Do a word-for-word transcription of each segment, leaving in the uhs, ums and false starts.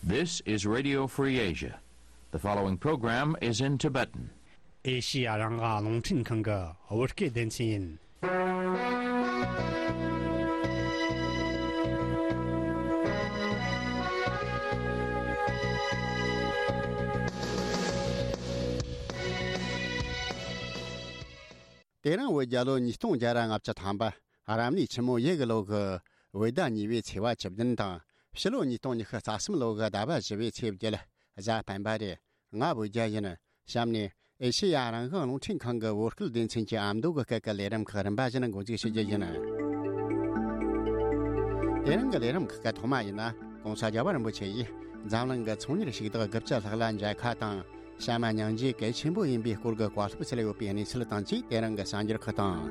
This is Radio Free Asia. The following program is in Tibetan. ཨེ་ཤི་ཡ་རང་དབང་རླུང་འཕྲིན་ཁང་གི་བོད་སྐད་སྡེ་ཚན་ཡིན། དེ་རིང་བོད་རྒྱལ་ལོ་ཉིས་སྟོང་བརྒྱ་ར་ལྔ་བཅུ་ཐམ་པ། རབ་གནས་ཆུ་མོ་ཡོས་གི་ལོ་གི་བོད་ཟླ་གཉིས་པའི་ཚེས་པ་བཅུ་བདུན་དང་། ཕྱི་ལོ་ཉིས་སྟོང་ཉི་ཤུ་རྩ་གསུམ་ལོ་གི་ཟླ་བ་བཞི་པའི་ཚེས་བརྒྱད། གཟའ་སྤེན་པ་རེད། ང་བོད་རྒྱལ་ཡིན། གཤམ་ནས་ཨེ་ཤེ་ཡ་རང་དབང་རླུང་འཕྲིན་ཁང་གི་བོད་སྐད་སྡེ་ཚན་གྱི་ཨ་མདོ་གི་སྐད་ཀྱི་ལས་རིམ་ཁག་རིམ་པ་བཞིན་འགོ་འཛུགས་ཞུ་རྒྱུ་ཡིན། དེ་རིང་གི་ལས་རིམ་ཁག་གི་ཐོག་མ་ཡིན་ན། ྋགོང་ས་རྒྱལ་བ་རིན་པོ་ཆེ་ཡིས་འཛམ་གླིང་གི་ཚོང་གཉེར་ཞུགས་བདག་དགུ་བཅུ་ལྷག་ལ་མཇལ་ཁ་དང་། བཤམས་མ་སྙིང་རྗེ་གལ་ཆེན་པོ་ཡིན་པའི་སྐོར་གྱི་བཀའ་སློབ་སྩལ་ཡོད་པའི་གནས་ཚུལ་དང་བཅས་དེ་རིང་གི་གསར་འགྱུར་ཁག་དང་།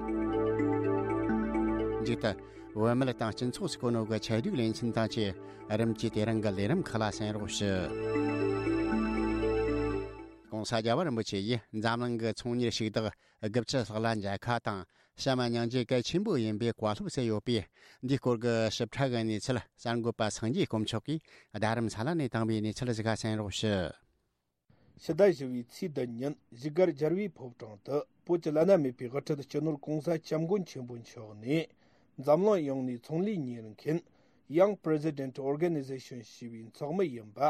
མཇུག་ཏུ། བོད་མི་དང་སྤྱི་ཚོགས་སུ་གོ་ནོ་གི་ཆེད་སྒྲིག་ལེ་ཚན་དང་བཅས་རིམ་གྱིས་དེ་རིང་གི་ལས་རིམ་ཁག་ལ་གསན་རོགས་ཞུ། ྋགོང་ས་རྒྱལ་བ་རིན་པོ་ཆེ་ཡིས་འཛམ་གླིང་གི་ཚོང་གཉེར་ཞུགས་བདག་དགུ་བཅུ་ལྷག་ལ་མཇལ་ཁ་དང་། བཤམས་མ་སྙིང་རྗེ་གལ་ཆེན་པོ་ཡིན་པའི་བཀའ་སློབ་སྩལ་ཡོད་པས། འདིའི་སྐོར་གྱི་ཞིབ་ཕྲ་གི་གནས་ཚུལ་གསར་འགོད་པ་སངས་རྒྱས་དཀོན་མཆོག་གིས་རྡ་རམ་ས་ལ་ནས་བཏང་བའི་གནས་ཚུལ་ཞིག་གསན་རོགས་ཞུ། ཕྱི་ཟླ་བཞི་བའི་ཚེས་བདུན་ཉིན་བཞུགས་སྒར་རྒྱལ་བའི་ཕོ་བྲང་དུ་བོད་ཀྱི་བླ་ན་མེད་པའི་དབུ་ཁྲིད་སྤྱི་ནོར་ྋགོང་ས་ྋསྐྱབས་མགོན་ཆེན་པོ་མཆོག་ནས། འཛམ་གླིང་ཡོངས་ནས་ཚོང་ལས་གཉེར་མཁན་Young President Organization ཞེས་པའི་ཚོགས་མི་ཡིན་པ་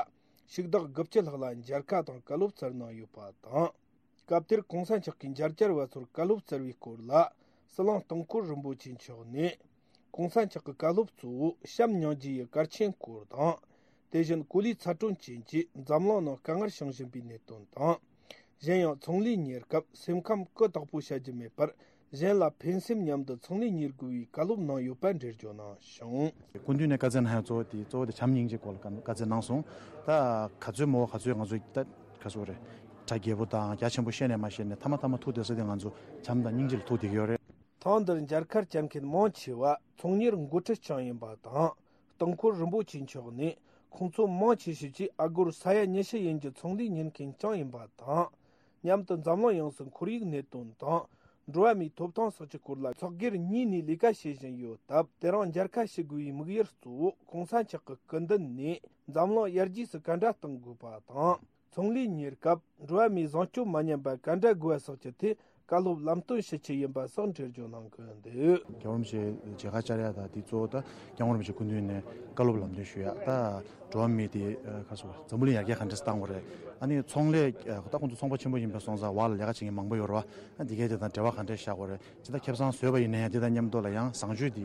ཞུགས་བདག་དགུ་བཅུ་ལྷག་ལ་མཇལ་ཁ་དང་བཀའ་སློབ་སྩལ་གནང་ཡོད་པ་དང་། སྐབས་དེར་ྋགོང་ས་མཆོག་གིས་མཇལ་བཅར་བ་ཚོར་བཀའ་སློབ་སྩལ་བའི་སྐོར་ལ། ཟི་ལིང་སྟེང་འཁོར་རིན་པོ་ཆེ་མཆོག་ནས། ྋགོང་ས་མཆོག་གི་བཀའ་སློབ་གཙོ་བོ་བྱམས་སྙིང་རྗེ་ཡི་གལ་ཆེན་སྐོར་དང་། དེ་བཞིན་གོ་ལའི་ཚ་དྲོད་ཅན་གྱིས་འཛམ་གླིང་ནང་དཀའ་ངལ་བྱུང་བཞིན་པའི་གནད་དོན་དང་། གཞན་ཡང་ཚོང་ལས་གཉེར་སྐབས་སེམས་ཁམས་ཀུན་བདག་པོ་བྱ་རྒྱུ་མེད་པར། གཞན་ལ་ཕན་སེམས་མཉམ་དུ་ཚོང་ལས་གཉེར་དགོས་པའི་བཀའ་སློབ་གནང་ཡོད་པ་འགྲེལ་བརྗོད་གནང་བྱུང་། སྐུ་མདུན་ནས་བཀའ་སྩལ་གནང་ཡག་གཙོ་བོ་དེ་གཙོ་བོ་དེ་བྱམས་སྙིང་རྗེ་སྐོར་ལ་བཀའ་བཀའ་སྩལ་གནང་སོང་། ད་ག་ཚོད་མོ་ག་ཚོད་ང་ཚོ་ད་ག་ཚོད་རེད། གྲ་རྒྱས་པོ་དང་རྒྱ་ཆེན་པོ་བཤད་ནས་མ་བཤད་ནས་མཐའ་མ་མཐའ་མ་ཐུག་བསྡད་ས་དེ་ང་ཚོ་བྱམས་དང་སྙིང་རྗེ་ལ་ཐུག་བསྡད་ཀྱི་ཡོད་རེད། ཐེངས་འདིར་མཇལ་ཁར་བཅར་མཁན་མང་ཆེ་བ་ཚོང་གཉེར་འགོ་ཁྲིད་རྐྱང་ཡིན་པ་དང་། སྟེང་འཁོར་རིན་པོ་ཆེ་མཆོག་ནས་ཁོང་ཚོ་མང་ཆེ་ཤོས་ཀྱིས་ཨ་སྒོར་ས་ཡ་ཉི་ཤུ་ཡན་གྱི་ཚོང་ལས་གཉེར་མཁན་རྐྱང་ཡིན་པ་དང་། མཉམ་དུ་འཛམ་གླིང་ཡོངས་སུ་ཁོར་ཡུག་གནད་དོན་དང་། འགྲོ་བ་མིའི་ཐོབ་ཐང་སོགས་ཀྱི་སྐོར་ལ་ཚོགས་སྒེར་གཉིས་ནས་ལས་ཀ་བྱེད་བཞིན་ཡོད་སྟབས། དེ་རིང་མཇལ་ཁ་ཞུ་དགོས་པའི་དམིགས་ཡུལ་གཙོ་བོ་ྋགོང་ས་མཆོག་གི་སྐུ་མདུན་ནས་འཛམ་གླིང་ཡར་རྒྱས་སུ་ག་འདྲ་གཏོང་དགོས་པ་དང་། ཚོང་ལས་གཉེར་སྐབས་འགྲོ་བ་མིའི་བཟང་སྤྱོད་མ་ཉམས་པ་ག་འདྲ་དགོས་པ་སོགས་ཀྱི་ཐད་བཀའ་སློབ་ལམ་སྟོན་ཞུ་ཆེད་ཡིན་པ་སོགས་འགྲེལ་བརྗོད་གནང་གི་འདུག་རྒྱལ་བ་རིན་པོ་ཆེ་མཇལ་ཁ་བཅར་ཡ་ད་དེ་གཙོ་བོ་ད་རྒྱལ་བ་རིན་པོ་ཆེ་སྐུ་མདུན་ནས་བཀའ་སློབ་ལམ་སྟོན་ཞུ་ཡ་ད། འགྲོ་བ་མི་དེ་ཁ་སོ་འཛམ་བུ་གླིང་ཡར་རྒྱས་ག་འདྲས་བཏང་དགོས་རེད། ཨ་ནི་ཚོང་ལས་ད་ཁོང་ཚོ་ཚོང་པ་ཆེན་པོ་ཡིན་པའི་སོང་ཙང་བར་ལ་ལས་ཀ་བྱེད་མཁན་མང་པོ་ཡོད་རེད་བ། ཨ་འདི་གས་དེ་དང་འབྲེལ་བ་ག་འདྲས་བཞག་དགོས་རེད། ཇི་ལྟར་ཁེ་བཟང་བཟོས་པ་ཡིན་ན་ཡང་དེ་དང་མཉམ་དུ་ལ་ཡང་བཟང་སྤྱོད་དེ་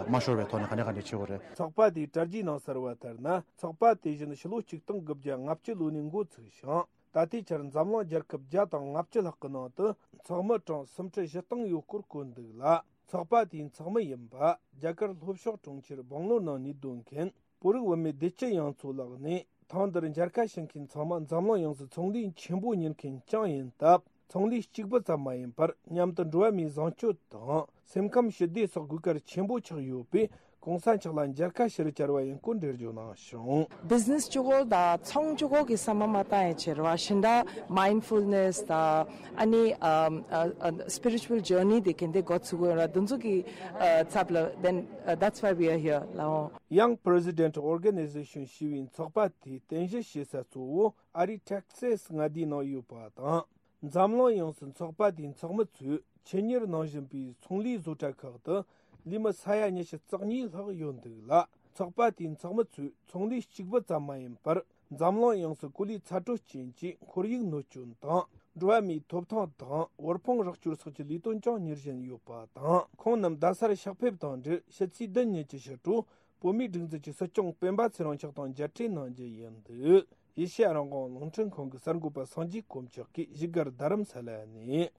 མ་ཤོར་བའི་ཐོག་ནས་ག་འདྲས་ག་འདྲས་བྱེད་དགོས་རེད། ཚོགས་པ་དེའི་གྲ་རྒྱས་ནང་གསལ་བ་ལྟར་ན། ཚོགས་པ་དེ་བཞིན་ཕྱི་ལོ་ཆིག་སྟོང་དགུ་བརྒྱ་ལྔ་བཅུ་ལོ་ནས་འགོ་ཚུགས་ཤིང་། ད་ལྟའི་ཆར་འཛམ་གླིང་རྒྱལ་ཁབ་བརྒྱ་དང་ལྔ་བཅུ་ལྷག་གི་ནང་དུ་ཚོགས་མི་གྲངས་སུམ་ཁྲི་བཞི་སྟོང་ཡོད་སྐོར་བཀོད་འདུག་ལ། ཚོགས་པ་དེའི་ཚོགས་མི་ཡིན་པ་རྒྱ་གར་ལྷོ་ཕྱོགས་གྲོང་ཁྱེར་སྦང་ལོར་ནང་གནས་སྡོད་མཁན་བོད་རིགས་བུད་མེད་བདེ་སྐྱིད་གཡང་མཚོ་ལགས་ནས། ཐེངས་འདིར་མཇལ་ཁ་ཞུ་མཁན་ཚང་མ་འཛམ་གླིང་ཡོངས་སུ་ཚོང་ལས་ཆེན་པོ་གཉེར་མཁན་རྐྱང་ཡིན་སྟབས། ཚོང་ལས་གཅིག་པུ་ཙམ་མ་ཡིན་པར་མཉམ་དུ་འགྲོ་བ་མིའི་བཟང་སྤྱོད་དང་སེམས་ཁམས་ཞི་བདེ་སོགས་དགོས་གལ་ཆེན་པོ་ཆགས་ཡོད་པས། ྋགོང་ས་མཆོག་ལ་མཇལ་ཁ་ཞུ་རུ་བཅར་བ་ཡིན་སྐོར་འགྲེལ་བརྗོད་གནང་བྱུང་། བི་ཛི་ནེ་སི་གཅིག་པོ་དང་ཚོང་གཅིག་པོ་གི་བསམ་པ་མ་བཏང་ཡ་བྱེད་ར་བ་ཤིན་ཏུ་མའིན་ཌ་ཕུལ་ནེ་སི་དང་ཨ་ནི་ཨ་ཨ་ཨ་སི་པི་རི་ཅུ་ཨལ་ཇར་ནི་དེ་གན་དེ་འགོ་ཚུགས་དགོས་ར་དེ་ཚོ་གི་ཨ་ཚབ་ལ་then uh, that's why we are here ལའོ། Young President Organization ཞེས་པའི་ཚོགས་པ་དེའི་རྟེན་གཞི་བྱེད་ས་གཙོ་བོ་ཨ་རིའི་ཊེག་སེ་སི་མངའ་སྡེའི་ནང་ཡོད་པ་དང་། འཛམ་གླིང་ཡོངས་སུ་ཚོགས་པ་དེའི་ཚོགས་མི་ཚོས་ཆེད་གཉེར་གནང་བཞིན་པའི་ཚོང་ལས་བཟོ་གྲྭ་ཁག་ཏུ་ལས་མི་ས་ཡ་ཉི་ཤུ་རྩ་གཉིས་ལྷག་ཡོད་འདུག་ལ། ཚོགས་པ་དེའི་ཚོགས་མི་ཚོས་ཚོང་ལས་གཅིག་པུ་ཙམ་མ་ཡིན་པར། འཛམ་གླིང་ཡོངས་སུ་གོ་ལའི་ཚ་དྲོད་ཅན་གྱི་ཁོར་ཡུག་གནོད་སྐྱོན་དང་། འགྲོ་བ་མིའི་ཐོབ་ཐང་དང་དབུལ་ཕོངས་རོགས་སྐྱོར་སོགས་ཀྱི་ལས་དོན་ཀྱང་གཉེར་བཞིན་ཡོད་པ་དང་། ཁོང་རྣམས་རྡ་སར་ཕྱག་ཕེབས་དང་འབྲེལ་ཕྱི་ཚེས་བདུན་ཉིན་གྱི་ཕྱི་དྲོ་བོད་མིའི་སྒྲིག་འཛུགས་ཀྱི་སྲིད་སྐྱོང་སྤེན་པ་ཚེ་རིང་མཆོག་དང་མཇལ་འཕྲད་གནང་རྒྱུ་ཡིན་འདུག་ཨེ་ཤེ་ཡ་རང་དབང་རླུང་འཕྲིན་ཁང་གི་གསར་འགོད་པ་སངས་རྒྱས་དཀོན་མཆོག་གིས་བཞུགས་སྒར་རྡ་རམ་ས་ལ་ནས།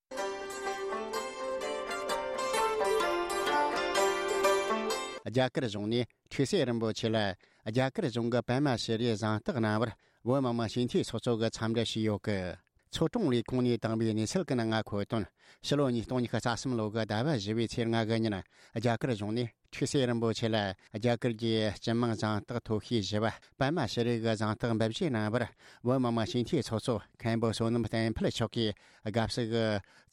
རྒྱ་གར་གཞུང་ནས་ཁྲུས་གསོལ་རིན་པོ་ཆེ་ལ་རྒྱ་གར་གཞུང་གི་པདྨ་ཤྲི་རིའི་གཟེངས་རྟགས་གནང་བར་བོད་མི་མང་སྤྱི་འཐུས་ཚོགས་གཙོ་གིས་འཚམས་འདྲི་ཞུས་ཡོད་སྐད། ཚོ་དྲུང་ལས་ཁུངས་ནས་བཏང་བའི་གནས་ཚུལ་གྱི་ནང་འཁོད་དོན། ཕྱི་ལོ་ཉིས་སྟོང་ཉི་ཤུ་རྩ་གསུམ་ལོ་གི་ཟླ་བ་བཞི་པའི་ཚེས་ལྔ་གི་ཉིན། རྒྱ་གར་གཞུང་ནས་ཁྲུས་གསོལ་རིན་པོ་ཆེ་ལ་རྒྱ་གར་གྱི་སྤྱི་དམངས་གཟེངས་རྟགས་མཐོ་ཤོས་བཞི་པ་པདྨ་ཤྲི་རི་གི་གཟེངས་རྟགས་འབུལ་བཞེས་གནང་བར། བོད་མི་མང་སྤྱི་འཐུས་ཚོགས་གཙོ་མཁན་པོ་བསོད་ནམས་བསྟན་འཕེལ་མཆོག་གིས་དགའ་བསུ་གི་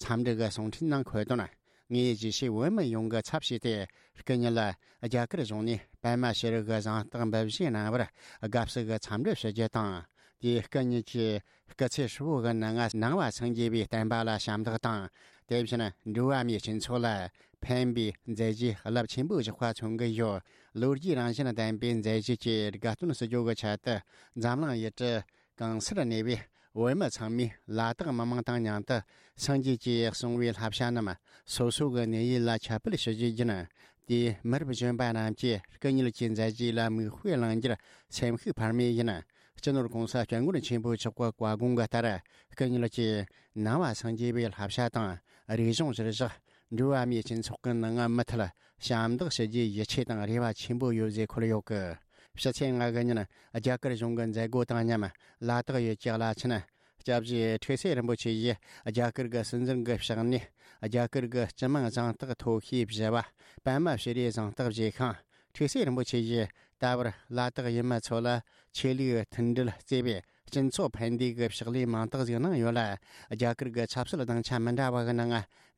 འཚམས་འདྲི་གི་གསུང་འཕྲིན་ནང་འཁོད་དོན། ངས་རྒྱལ་སྤྱིའི་བོད་མི་ཡོངས་ཀྱི་ཚབ་བྱས་ཏེ། སྐུ་ཉིད་ལ་རྒྱ་གར་གཞུང་ནས་པདྨ་ཤེས་རིག་གི་གཟེངས་རྟགས་འབུལ་བཞེས་གནང་བར་དགའ་བསུ་གི་འཚམས་འདྲི་ཞུ་རྒྱུ་དང་། དེའི་སྐུ་ཉིད་ཀྱི་སྐུ་ཚེ་ཧྲིལ་བོ་གི་ནང་ང་ནང་བ་སངས་རྒྱས་པའི་བསྟན་པ་ལ་ཞབས་འདེགས་དང་། དེ་བཞིན་འགྲོ་བ་མིའི་སྤྱི་ཚོགས་ལ་ཕན་པའི་མཛད་རྗེས་རླབས་ཆེན་པོ་བཞག་པ་མཚོན་གྱི་ཡོད། ལོ་རྒྱུས་རང་བཞིན་ལྡན་པའི་མཛད་རྗེས་ཀྱི་དགའ་སྟོན་ཞུ་རྒྱུ་གི་ཆེད་དུ། འཛམ་གླིང་ཡུལ་གྲུ་གང་སར་གནས་པའི་བོད་མི་ཚང་མས་ལ་དྭགས་མི་མང་དང་མཉམ་དུ་སངས་རྒྱས་ཀྱིས་གསུངས་པའི་བསླབ་བྱ་རྣམས་སོ་སོ་གི་གནས་ཡུལ་ལ་ཁྱབ་སྤེལ་ཞུ་རྒྱུ་ཡིན། དེས་མི་རབས་གཞོན་པ་རྣམས་ཀྱིས་སྐུ་ཉིད་ཀྱི་མཛད་རྗེས་ལ་མིག་དཔེ་བླང་རྒྱུར་སེམས་ཤུགས་འཕར་མེད་ཡིན། སྤྱི་ནོར་༸གོང་ས་༸སྐྱབས་མགོན་ཆེན་པོ་མཆོག་གི་བཀའ་དགོངས་ཀྱི་ལྟར། སྐུ་ཉིད་ཀྱིས་ནང་བ་སངས་རྒྱས་པའི་བསླབ་བྱ་དང་རིག་གཞུང་གཞིར་བཞག་འགྲོ་བ་མིའི་སྤྱི་ཚོགས་ཀྱི་ནང་མུ་མཐུད་ཞབས་འདེགས་ཞུ་རྒྱུའི་ཡིད་ཆེས་དང་རེ་བ་ཆེན་པོ་ཡོད་ཅེས་འཁོད་ཡོད་སྐད། ཕྱི་ཚེས་ལྔ་གི་ཉིན་རྒྱ་གར་གཞུང་གི་མཛད་སྒོ་དང་མཉམ་ལ་དྭགས་ཡུལ་གྱི་བླ་ཆེན་སྐྱབས་རྗེ་ཁྲི་སྲས་རིན་པོ་ཆེ་ཡིས་རྒྱ་གར་གྱི་སྲིད་འཛིན་གྱི་ཕྱག་ནས་རྒྱ་གར་གྱི་སྤྱི་དམངས་གཟེངས་རྟགས་ཐོབ་ཤེས་བཞེས་པ། པདྨ་ཤྲི་རིའི་གཟེངས་རྟགས་བཞེས་ཤིང་། ཁྲི་སྲས་རིན་པོ་ཆེ་ཡིས་ད་བར་ལ་དྭགས་ཡུལ་མི་ཚོ་ལ་ཆོས་ལུགས་མཐུན་སྒྲིལ་བརྩེ་བའི་སྤྱི་ཚོགས་ཕན་བདེ་གི་ཕྱག་ལས་མང་དག་ཞིག་གནང་ཡོད་ལ། རྒྱ་གར་གྱི་ཆབ་སྲིད་དབང་ཆ་མི་འདྲ་བ་གི་ནང་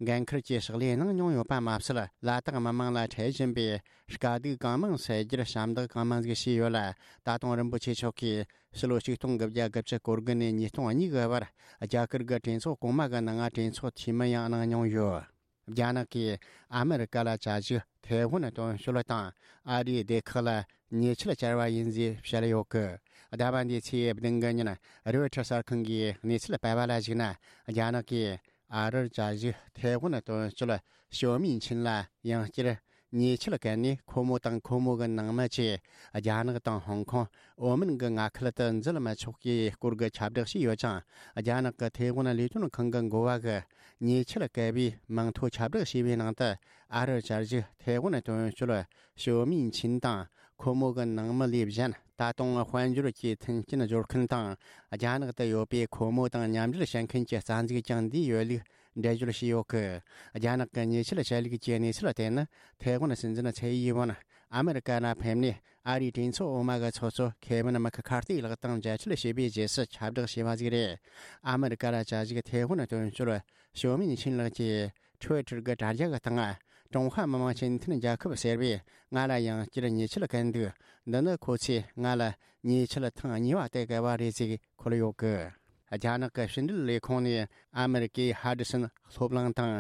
འགན་འཁུར་གྱི་ཕྱག་ལས་གནང་མྱོང་ཡོད་པ་མ་ཟད། ལ་དྭགས་མི་མང་ལ་འཕྲད་བཞིན་པའི་དཀའ་སྡུག་གང་མང་སེལ་རྒྱུར་ཞབས་འདེགས་གང་མང་ཞིག་བྱས་ཡོད་ལ། ད་དུང་རིན་པོ་ཆེ་མཆོག་གིས་ཕྱི་ལོ་ཆིག་སྟོང་དགུ་བརྒྱ་དགུ་བཅུ་གོ་དགུ་ནས་ཉིས་སྟོང་གཉིས་ཀྱི་བར་རྒྱ་གར་གྱི་གྲོས་ཚོགས་གོང་མ་གི་ནང་གྲོས་ཚོགས་འཐུས་མི་ཡང་གནང་མྱོང་ཡོད། རྒྱ་ནག་གིས་ཨ་མི་རི་ཀ་ལ་བཅའ་བཞུགས་ཐའེ་ཝན་དོན་གཅོད་དང་ཨ་རིའི་སྡེ་ཁག་ལ་ཉེས་ཆད་བཅར་བ་ཡིན་ཞེས་བཤད་ཡོད་སྐད། ཟླ་བ་འདིའི་ཚེས་བདུན་གི་ཉིན་རོའི་ཊར་གསར་ཁང་གིས་གནས་ཚུལ་སྤེལ་བ་ལ་གཞིགས་ན། རྒྱ་ནག་གིས་ཨ་རིར་བཅའ་བཞུགས་ཐའེ་ཝན་དོན་གཅོད་ཞོ་མིན་ཆིན་ལ་ཡང་བསྐྱར་ཉེས་ཆད་བཀལ་ནས། ཁོ་མོ་དང་ཁོ་མོ་གི་ནང་མི་བཅས་རྒྱ་ནག་དང་ཧོང་ཀོང་། ཨོ་མན་གྱི་མངའ་ཁུལ་དུ་འཛུལ་མི་ཆོག་པའི་སྐོར་གྱི་ཁྱབ་བསྒྲགས་བྱས་ཡོད་ཅིང་། རྒྱ་ནག་གི་ཐའེ་ཝན་ལས་དོན་ཁང་གི་འགོ་བ་གིས་ཉེས་ཆད་བཀལ་བའི་མིང་ཐོ་ཁྱབ་བསྒྲགས་བྱས་པའི་ནང་དུ། ཨ་རིར་བཅའ་བཞུགས་ཐའེ་ཝན་དོན་གཅོད་ཞོ་མིན་ཆིན་དང་ཁོ་མོ་གི་ནང་མི་ལས་གཞན། ད་དུང་དཔལ་འབྱོར་གྱི་མཐུན་རྐྱེན་སྦྱོར་མཁན་དང་། རྒྱ་ནག་ཏུ་ཡོད་པའི་ཁོ་མོ་དང་མཉམ་འབྲེལ་བྱེད་མཁན་གྱི་རྩ་འཛུགས་ཀྱང་འདིའི་ཡུལ་ལུགས་འགྲེལ་བརྗོད་བྱས་ཡོད་སྐད། རྒྱ་ནག་གི་ཉེས་ཆད་བཅད་ལུགས་ཀྱི་གནས་ཚུལ་དེ་ནི། ཐའེ་ཝན་སྲིད་འཛིན་ཚའེ་ཡིན་ཝུན་ཨ་མི་རི་ཀ་ལ་ཕེབས་ནས། ཨ་རིའི་གྲོས་ཚོགས་འོག་མ་གི་ཚོགས་གཙོ་ཁེ་ཝིན་མེག་ཁར་ཐི་ལགས་དང་མཇལ་འཕྲད་བྱས་པའི་རྗེས་སུ་ཁྱབ་བསྒྲགས་བྱས་པ་ཞིག་རེད། ཨ་མི་རི་ཀ་ལ་བཅའ་བཞུགས་ཐའེ་ཝན་དོན་གཅོད་ཞོ་མིན་ཆིན་ལགས་ཀྱིས་ཊུ་ཝི་ཊར་གྱི་དྲ་རྒྱ་གི་སྟེང་། ཀྲུང་ཧྭ་མི་དམངས་སྤྱི་མཐུན་རྒྱལ་ཁབ་ཟེར་བས་ང་ལ་ཡང་བསྐྱར་ཉེས་ཆད་བཀལ་འདུག་འདི་ནི་ཁོ་ཚོས་ང་ལ་ཉེས་ཆད་ཐེངས་གཉིས་པ་དེ་བཀལ་བ་རེད་ཅེས་འཁོད་ཡོད་སྐད། རྒྱ་ནག་གི་ཕྱི་འབྲེལ་ལས་ཁུངས་ནས་ཨ་མི་རི་ཀའི་ཧ་ཌི་སན་སློབ་གླིང་དང་